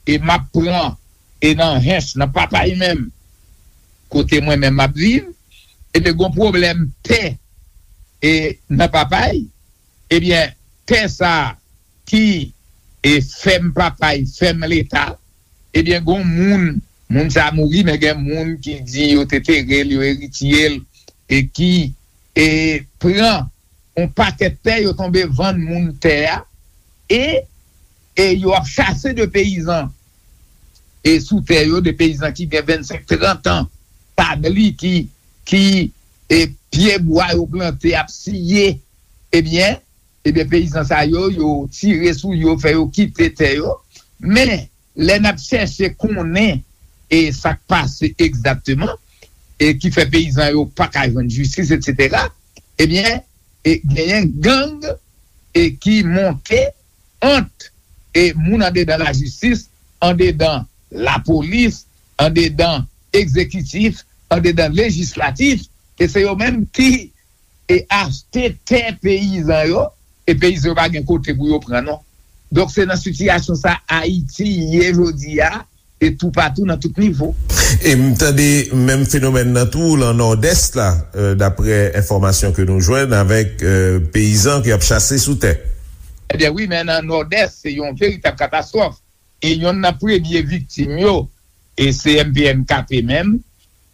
e m ap pran, e nan Ench, nan Papay menm, kote mwen menm m ap viv, e te gen pwoblèm tè e nan Papay, ebyen, tè sa ki e fèm Papay, fèm Leta, ebyen, gon moun, moun sa mouri, men gen moun ki di yo te tere l, yo eritye l, e ki e pran yon pakèt tè, yo tonbe vann moun tè a, e, e yo ap chase de peyizan e sou tè yo, de peyizan ki gen vennsenk, trant an, tabli ki, ki e pye bwa yo plante ap siye, ebyen, ebyen, peyizan sa yo, yo tire sou yo, fè yo kite tè yo. Men, lè n ap chèche konnen e sa k pase egzakteman, e ki fè peyizan yo pa ka jwenn jistis, etsetera, ebyen, e genyen gang e ki monte ant e moun andedan lajistis, andedan lapolis, andedan egzekitif, andedan lejislatif, e se yo menm ki e achte tè peyizan yo, e peyizan yo pa gen kote pou yo pran non. Donk se nan sitiyasyon sa Ayiti ye jodi a, e toupatou nan tout nivo. E m tande menm fenomèn nan tou lan Nòdès la, euh, daprè enfòmasyon ke nou jwenn avèk euh, peyizan ki ap chase sou tè. Ebyen wi, men nan Nòdès, se yon veritab katastwòf. E yonn nan premye viktim yo, e se M P N K P menm,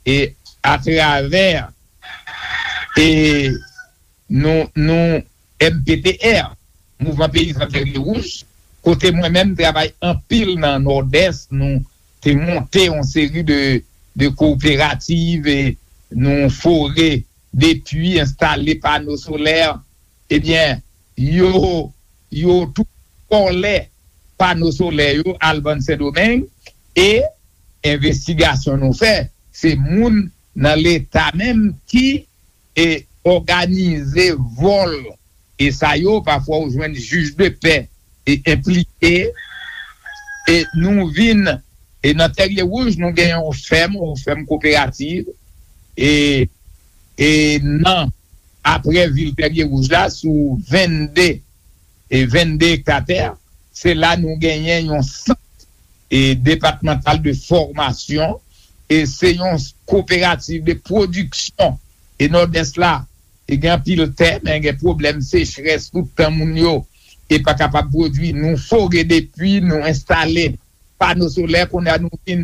e atravè e nou, nou M P T R, Mouvman Peyizan Tèrye Wouj, kote mwen menm travay anpil nan Nòdès, nou te monte yon seri de, de kooperativ, e nou fore de pwi, enstale pano solè, ebyen, yo, yo tou vòlè pano solè yo al vann Sendomeng, e envestigasyon nou fè, se moun nan Leta menm ki e òganize vòl e sa yo, pafwa ou jwenn jij de pè e enplike, e nou vin, e nan Tèrye Wouj, nou gen yon fèm, yon fèm kooperativ, e, e nan, aprè vil Tèrye Wouj la, sou vennde, e vennde ekta tè, se la nou genyen yon sant e depatmantal de fòmasyon, e se yon kooperativ de pwodiksyon, e Nòdès la, e gen anpil tè, men gen pwoblèm sechrès, tout tan moun yo e pa kapab pwodui. Nou fore de pwi, nou enstale pano solè, kounye a nou vin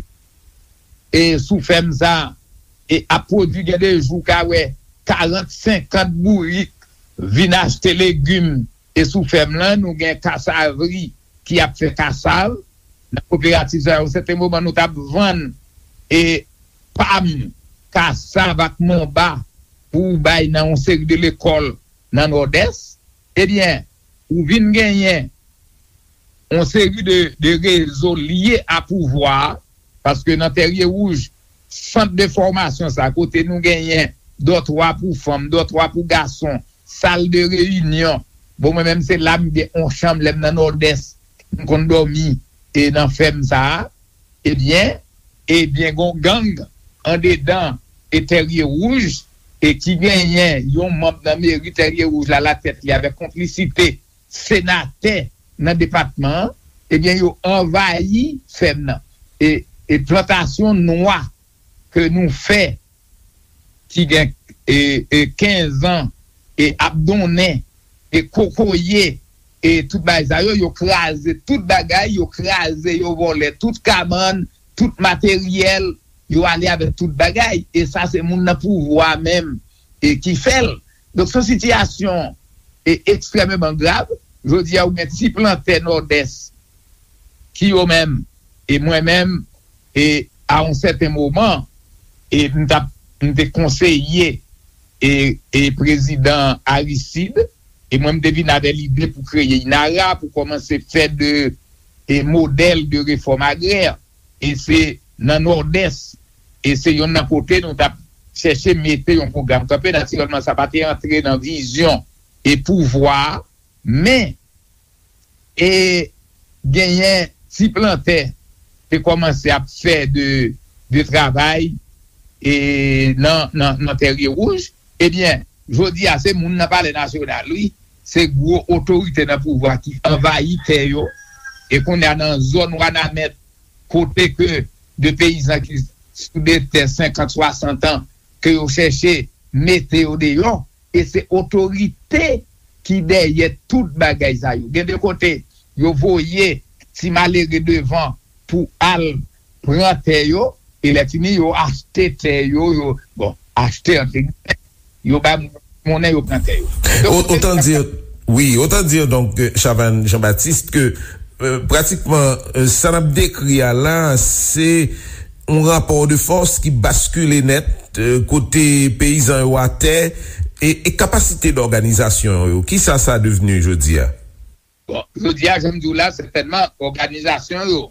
e sou fèm sa, e ap pwodui, gen de jou ka wè karant, senkant bourik vin achte legim, e sou fèm lan, nou gen kasavri ki ap fè kasav. Nan kooperativ sa, yon sèten moman, nou t ap vann e pam, kasav ak manba pou bay nan yon seri de lekòl nan Nòdès. Ebyen, ou vin genyen yon seri de, de rezo lye a pouvwa a, paske nan Tèrye Wouj, sant de fòmasyon sa, kote nou genyen dòtwa pou fanm, dòtwa pou gason, sal de reyinyon. Bon, mwen menm, se la m gen yon chanm, lè m nan Nòdès, m konn dòmi e nan fèm sa a. Ebyen, ebyen, gon gang andedan e Tèrye Wouj, e ki genyen yon manm nan meri Tèrye Wouj la latèt li avèk konplisite senatè nan depatman an, ebyen, yo anvayi fèm nan. E, e plantasyon nwa ke nou fè, ki gen e, e kenz an, e ap donnen, e kokoye, e tout bagay sa yo, yo kraze tout bagay, yo kraze, yo vòlè tout kabann, tout materyèl, yo ale avèk tout bagay. E sa, se moun nan pouvwa menm e ki fè l. Donk, se yon sitiyasyon e ekstrèmeman grav. Jodi a, ou gen ti plantè Nòdès ki yo menm, e mwen menm, e a yon sèten moman, e m t ap, m te konseye e, e prezidan Aristide, e mwen m te vin avè lide pou kreye INARA, pou kòmanse fè de e modèl de refòm agrè, e se nan Nòdès, e se yonn nan kote nou t ap chèche mete yon pwogram kanpe. Natirèlman, sa pa te antre nan vizyon e pouvwa a, men e genyen ti plantè te kòmanse ap fè de, de travay e nan, nan, nan Tèrye Wouj. Ebyen, jodi a, se moun nan Palè Nasyonal, wi. Se gwo otorite nan pouvwa ki anvayi tè yo. E kounye a nan zòn Wanament, kote ke de peyizan ki sou de tè senkant, swasant an, ke yo chèche mete yo deyò, e se otorite ki dèyè tout bagay sa yo. Gen de kote, yo voye ti malere devan pou al pran tè yo, e lè fini, yo achte tè yo, yo, bon, achte antre gilmè, yo bay moun monnen, yo pran tè yo. Donk, Autant dire, oui, autant dire donc, euh, Chavannes Jean-Baptiste, ke euh, pratikman euh, sa n ap dekri a la, se yon rapò de fòs ki baskile nèt euh, kote peyizan yo atè, e, e kapasite dòganizasyon yo, kisa sa devni jodi a? Bon, jodi a, jan m di w la, sètènman, òganizasyon yo,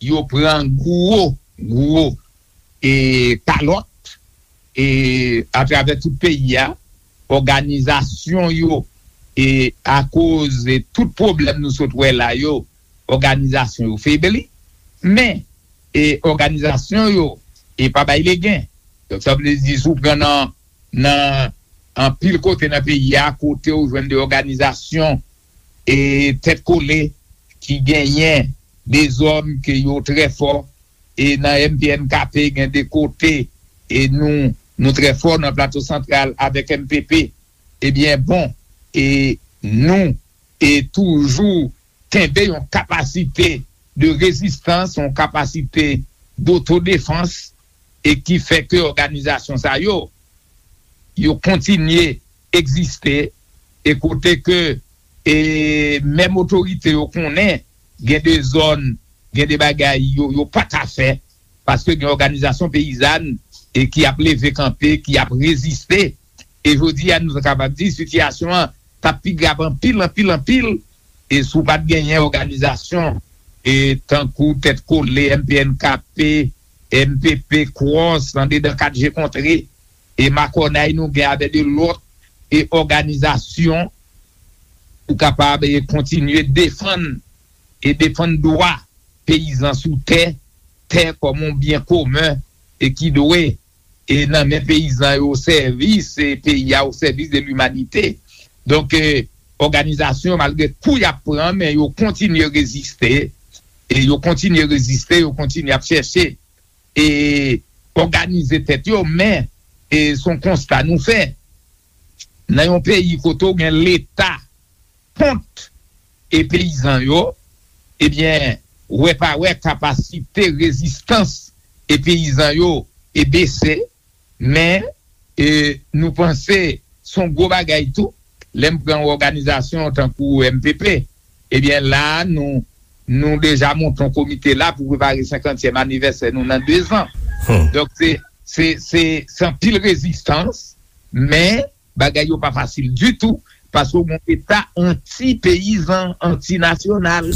yo pran gwo, gwo e kalòt e atravè tout peyi a, òganizasyon yo, e akoz e tout pwoblèm nou sot wè la yo, òganizasyon yo febli. Men, e òganizasyon yo, e pa bay legen. Donk, sa vle di, si w pran nan, nan anpil kote nan peyi a, kote w jwenn de òganizasyon e tèt kole ki genyen de zòn ke yo trè fò, e nan M P N K P gen de kote, e nou, nou trè fò nan Plato Santral avèk M P P. Ebyen, bon, e nou, e toujou kenbe yon kapasite de rezistans, yon kapasite dotodefans, e ki fè ke òganizasyon sa yo, yo kontinye egziste, e kote ke, e menm otorite yo konnen, gen de zòn, gen de bagay yo, yo pa ka fè, paske gen òganizasyon peyizàn, e ki ap leve kanpe, ki ap reziste. E jodi a, nou kapab di, sitiyasyon an t ap pi grav anpil, anpil, anpil, e si w pa t genyen òganizasyon, e tankou Tèt Kole, M P N K P, M P P, Kwòs, andedan kat je kontre, e makònay nou gen avè de lòt, e òganizasyon, pou kapab, e kontinye defann, e defann dwa peyizan sou tè, tè kòm yon byen komen, e ki dwe, e nan men peyizan yo, o sèvis, e peyi a, o sèvis de limanite. Donk, e òganizasyon, malgre kou y ap pran, men yo kontinye reziste, e yo kontinye reziste, yo kontinye ap chèche, e òganize tèt yo, men, e se yon konsta nou fè. Nan yon peyi kote w gen Leta kont e peyizan yo, ebyen, wè pa wè, kapasite rezistans e peyizan yo e bese, men, e nou panse se yon gwo bagay tou, lè m pran yon òganizasyon tankou M P P, ebyen, la, nou, nou deja monte yon komite la pou prepare senkantyèm anivèsè nou nan de zan. Donk, se, se, se, se anpil rezistans, men bagay yo pa fasil ditou, paske w gen yon Leta anti-peyizan, anti-nasyonal.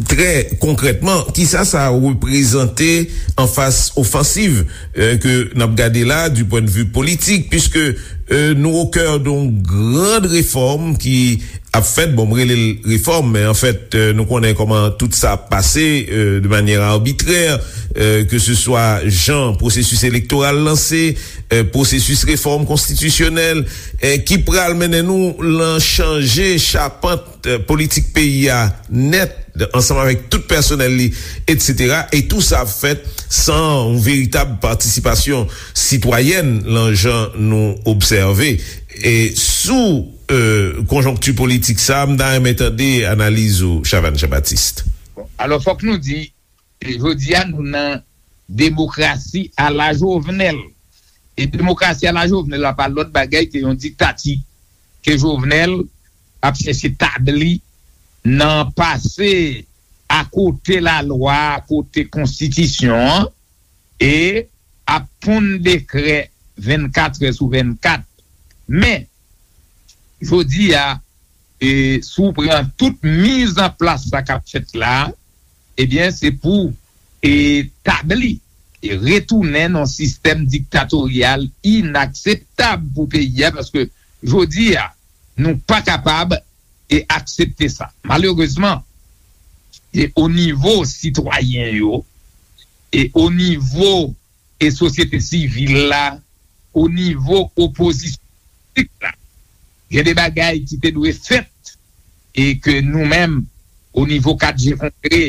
Trè konkrètman, kisa sa reprezante an fas ofansiv euh, ke n ap gade la du point de vue politik, puisque euh, nou au cœur d'une grande réforme ki ap fèt, bon, m rele l refòm, men anfèt, euh, nou konnen kòman tout sa ap pase euh, de manyè arbitrè, euh, ke se swa jan pwosesis elektoral lanse, euh, pwosesis refòm konstitisyonèl, euh, ki pral mennen nou lan chanje chapant euh, politik peyi a nèt, ansanm avèk tout pèsonèl li, etsetera. E tou sa ap fèt san yon veritab patisipasyon sitwayèn lan jan nou obsève. E sou euh, konjonkti politik sa, m ta renmen tande analiz ou, Chavannes Jean-Baptiste. Alò, fòk nou di, e jodi a, nou nan demokrasi ala Jovenel. E demokrasi ala Jovenel la pa lòt bagay ke yon diktati ke Jovenel ap chèche tabli nan pase akote lalwa, akote konstitisyon an, e ap ponn dekrè vennkat è sou vennkat. Men, jodi a, e, si w pran tout mizanplas sa k ap fèt la, ebyen, se pou e, tabli e retounen nan yon sistèm diktatoryal inakseptab pou peyi a, paske jodi a, nou pa kapab e aksepte sa. Malerezman, e o nivo sitwayen yo, e o nivo e sosyete sivil la, o nivo opozisyon politik la, gen de bagay ki te dwe fèt e ke nou menm, o nivo kat je kontre,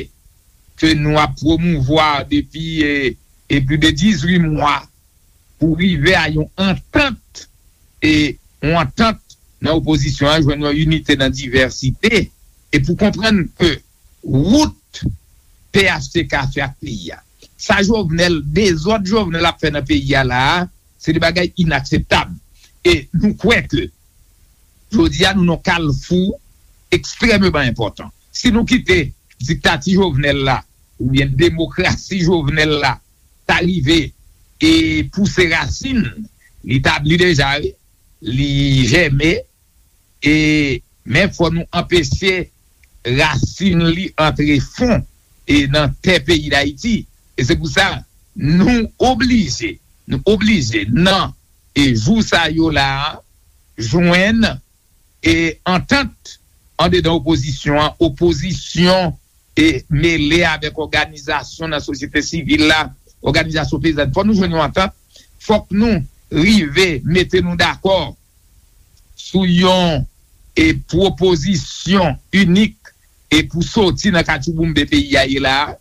ke nou ap pwomouvwa depi e, e plis de dizuit mwa pou rive a yon antant, e yon antant nan opozisyon an jwenn yon inite nan divèsite e pou konprann ke wout P H T K fè ak peyi a. Sa Jovenel, dezòd Jovenel ap fè nan peyi a la a, se de bagay inakseptab. E nou kwè ke jodi a nou nan kalfou ekstrèmeman enpòtan. Si nou kite diktati Jovenel la, oubyen demokrasi Jovenel la, ta rive e pouse rasin, li tabli deja, wi, li jèmen, e men fò nou anpeche rasin li antre fon e nan tè peyi Dayiti. E se pou sa nou oblije, nou oblije nan e jou sa yo la a, jwenn e antant andedan opozisyon an, opozisyon e mele avèk òganizasyon nan sosyete sivil la, òganizasyon peyizan. Fò nou jwenn yon antant, fòk nou rive mete nou dakò sou yon e pwopozisyon inik e pou soti nan katchouboumbe peyi a ye la a.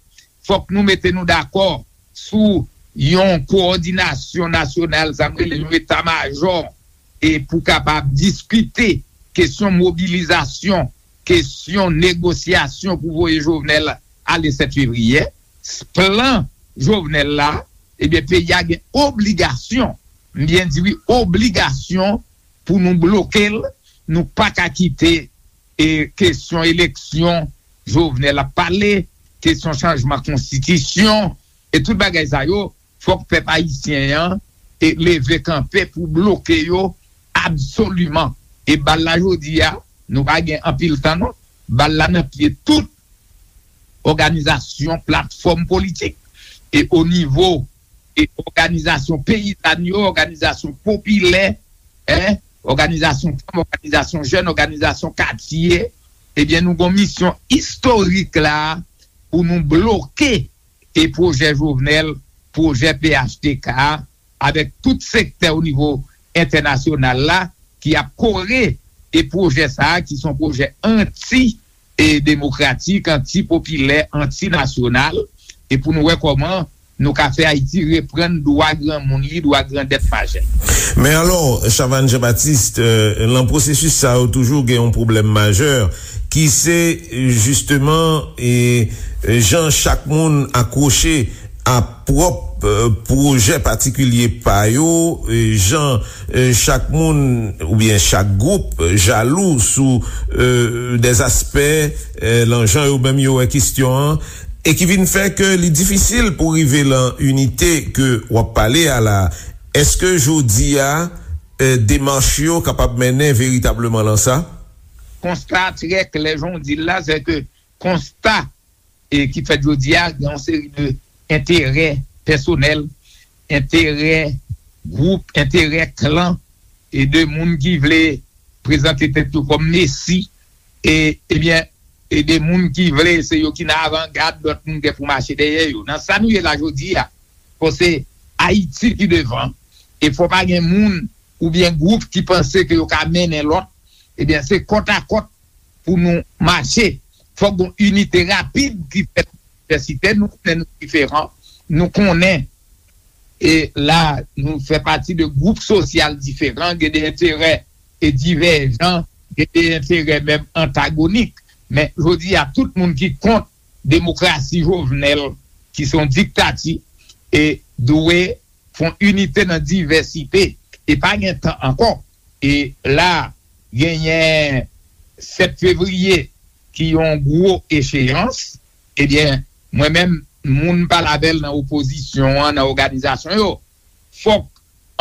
Fòk nou mete nou dakò sou yon kowòdinasyon nasyonal, sa m rele yon eta majò, e pou kapab diskite kesyon mobilizasyon, kesyon negosyasyon pou voye Jovenel ale sèt fevriye. Plan Jovenel la, ebyen, peyi a gen obligasyon, m byen di wi, obligasyon pou nou bloke l, nou pa ka kite e kesyon eleksyon Jovenel ap pale, kesyon chanjman konstitisyon, e tout bagay sa yo, fòk pèp ayisyen an e leve kanpe pou bloke yo absoliman. E bal la jodi a, nou pa gen anpil tan non. Bal la nan pye tout òganizasyon, platfòm politik. E o nivo e òganizasyon peyizàn yo, òganizasyon popilè, en, òganizasyon fanm, òganizasyon jèn, òganizasyon katye, ebyen, nou gon misyon istorik la pou nou bloke e pwojè Jovenel, pwojè P H T K a, avèk tout sektè o nivo entènasyonal la ki ap kore e pwojè sa a, ki se yon pwojè anti e demokratik, anti popilè, anti nasyonal, e pou nou wè kòman nou ka fè Ayiti reprann dwa granmoun li, dwa grandèt majè. Men alò, Chavannes Jean-Baptiste, euh, lan pwosesis sa yo toujou gen yon pwoblèm majè ki se jisteman e jan chak moun akwoche a pwòp, euh, pwojè patikilye pa yo, e jan, euh, chak moun oubyen chak gwoup, euh, jalou sou, euh, dèzaspè, euh, lan jan yo menm yo wè kesyon an, e ki vin fè ke li difisil pou rive lan inite ke w ap pale a la. Èske jodi a, euh, demach yo kapab mennen veritableman lan sa? Konsta trè klè, jan w di l la, se ke konsta e ki fèt jodi a, gen yon seri de enterè pèsonèl, enterè gwoup, enterè klan, e de moun ki vle prezante tèt yo kòm mesi, e, ebyen, e de moun ki vle se yo ki nan avangad, lòt moun gen pou mache dèyè yo. Nan sa nou ye la jodi a, fò se Ayiti ki devan, e fò pa gen moun oubyen gwoup ki panse ke yo ka mennen lòt, ebyen, se kòtakòt pou nou mache. Fòk gon inite rapid ki fèt nan divèsite. Nou konnen nou diferan. Nou konnen, e la, nou fè pati de gwoup sosyal diferan, gen de enterè e divèjan, gen de enterè menm antagonik. Men, jodi a, tout moun ki kont demokrasi Jovenel, ki se yon diktati, e dwe fè yon inite nan divèsite. E pa gen tan ankò. E la, genyen sèt fevriye, ki yon gwo echeyans. Ebyen, mwen menm, moun m pale avè l nan opozisyon an, nan òganizasyon yo, fòk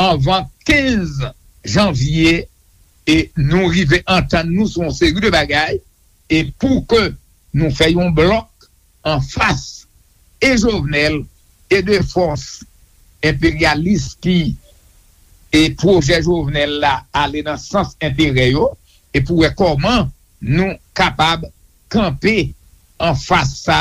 anvan kenz janvye, e nou rive antann nou sou yon seri de bagay, e pou ke nou fè yon blòk anfas e Jovenel e de fòs enperyalis ki e pwojè Jovenel la ale nan sans enterè yo, e pou wè kòman nou kapab kanpe anfas sa,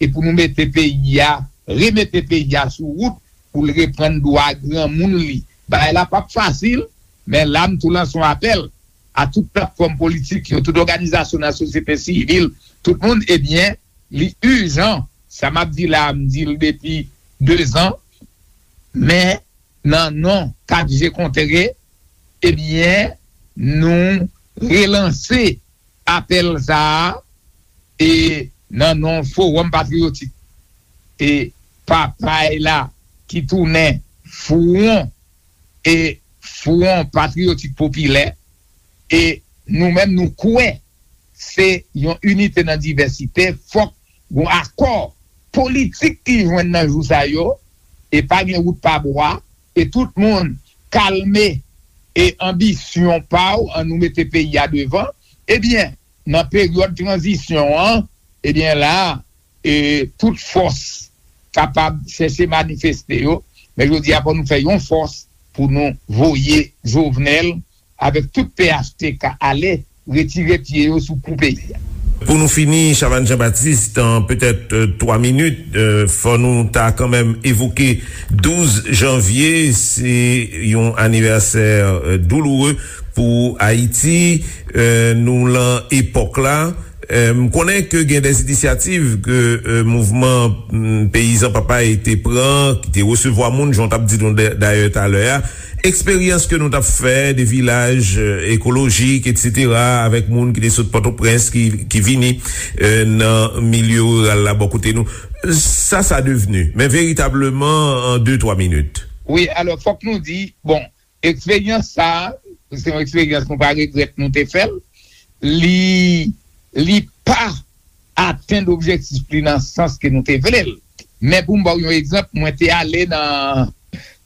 e pou nou mete peyi a, remete peyi a sou wout, pou l reprann dwa granmoun li. Bagay la p ap fasil, men la m tou lanse yon apèl a tout platfòm politik yo, tout òganizasyon nan sosyete sivil, tout moun, ebyen, li ijan. Sa m ap di la, m di l depi de zan, men nan non kat je kontre, ebyen, nou relanse apèl sa a, e nan non Fowòm Patriyotik e Papay la ki tounen Fwon e Fwon Patriyotik Popilè, e nou menm nou kwè se yon inite nan divèsite, fòk gon akò politik ki jwenn nan jou sa yo, e pa gen wout pa bwa, e tout moun kalme e anbisyon pa w, an nou mete peyi a devan, ebyen, nan peryòd tranzisyon an, ebyen la, e tout fòs kapab chèche manifeste yo, men jodi a fò nou fè yon fòs pou nou voye Jovenel avèk tout P H T K ale retire pye yo sou kou peyi a. Pou nou fini, Chavannes Jean-Baptiste, an petèt twa minit, fò nou ta kanmenm evoke douz janvye, se yon anivèsè douloure pou Ayiti. Nou lan epòk la. M konnen ke gen de inisyativ ke mouvman peyizan Papay te pran, ki te resevwa moun, jan w t ap di nou dayè talè a. Eksperyans ke nou t ap fè de vilaj ekolojik, etsetera, avèk moun ki te sot Pòtoprens, ki, ki vini nan milye riral la bò kote nou. Sa, sa devni, men veritableman, an de, twa minit. Wi, alò, fòk nou di, bon, eksperyans sa a, se yon eksperyans nou pa regrèt nou te fè l. Li, li pa atenn objektif li nan sans ke nou te vle l. Men pou m ba w yon egzanp, mwen te ale nan,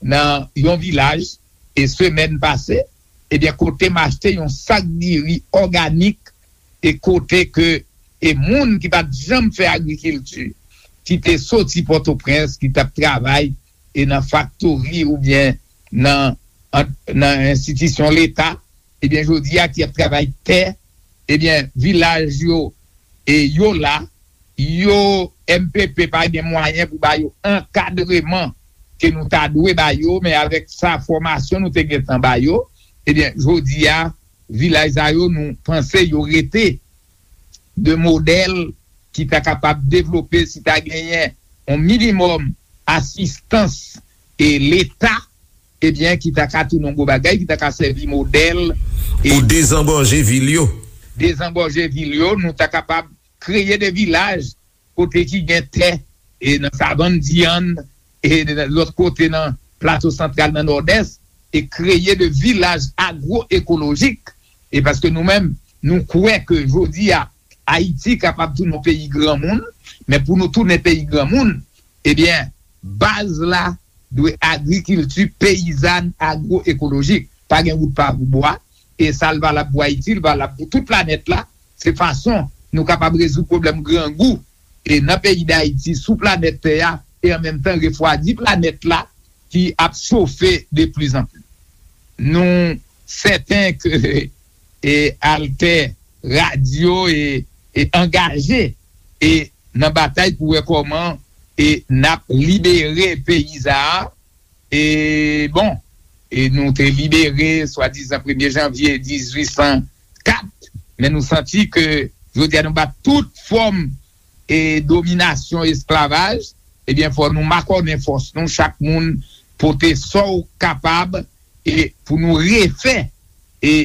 nan yon vilaj, e semèn pase, ebyen, kote m achte yon sak diri òganik, e kote ke, e moun ki pa t janm fè agrikilti, ki te soti Pòtoprens, ki t ap travay, e nan faktori oubyen nan, nan enstitisyon Leta, ebyen, jodi a ki ap travay tè, ebyen, vilaj yo, e yo la, yo, M P P pa gen mwayen pou ba yo ankadreman ke nou ta dwe ba yo, men avèk sa fòmasyon nou te gentan ba yo, ebyen, jodi a, vilaj sa yo, nou panse yo rete de modèl ki ta kapab devlope si ta genyen yon minimòm asistans e Leta, ebyen, ki ta ka tounen yon gwo bagay, ki ta ka sèvi modèl. E pou dezangòje vil yo. Dezangòje vil yo, nou ta kapab kreye de vilaj kote ki gen tè, e nan Savann Dyann, e lòt kote nan Plato Santral, nan Nòdès, e kreye de vilaj agwoekolojik. E paske nou menm, nou kwè ke jodi a, Ayiti kapab tounen yon peyi granmoun, men pou nou tounen peyi granmoun, ebyen, baz la dwe agrikilti peyizàn agwoekolojik. Pa gen wout pa bwa, e sa l valab pou Ayiti, l valab pou tout planèt la. Se fason nou kapab rezoud pwoblèm grangou e nan peyi Dayiti, sou planèt tè a, e an menm tan refwadi planèt la ki ap chofe de pli zan pli. Nou sèten ke, e, Altè Radio e, e angaje e nan batay pou wè kòman e n ap libere peyi sa a. E bon, e nou te libere swadizan premye janvye dizuit san kat, men nou santi ke jodi a nou bat tout fòm e dominasyon, esklavaj, ebyen, fò nou makònen fòs nou, chak moun pote sa w kapab, e pou nou refè e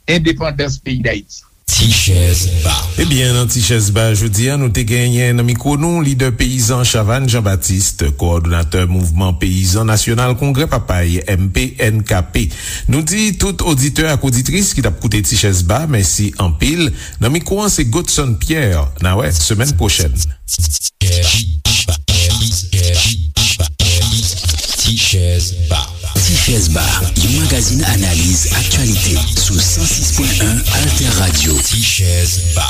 endepandans peyi Dayiti. Ti chèz ba. Ebyen, nan Ti chèz ba jodi a, nou te genyen nan mikwo nou lidè peyizan Chavannes Jean-Baptiste, kowòdonatè Mouvman Peyizan Nasyonal Kongrè Papay, M P N K P. Nou di tout oditè ak oditris ki t ap koute Ti chèz ba, mèsi anpil. Nan mikwo an, se Godson Pierre. N a wè semèn pwochèn. Ti chèz ba. Ti chèz ba, yon magazin analiz aktyalite sou san sis pwen en Alter Radio. Ti chèz ba.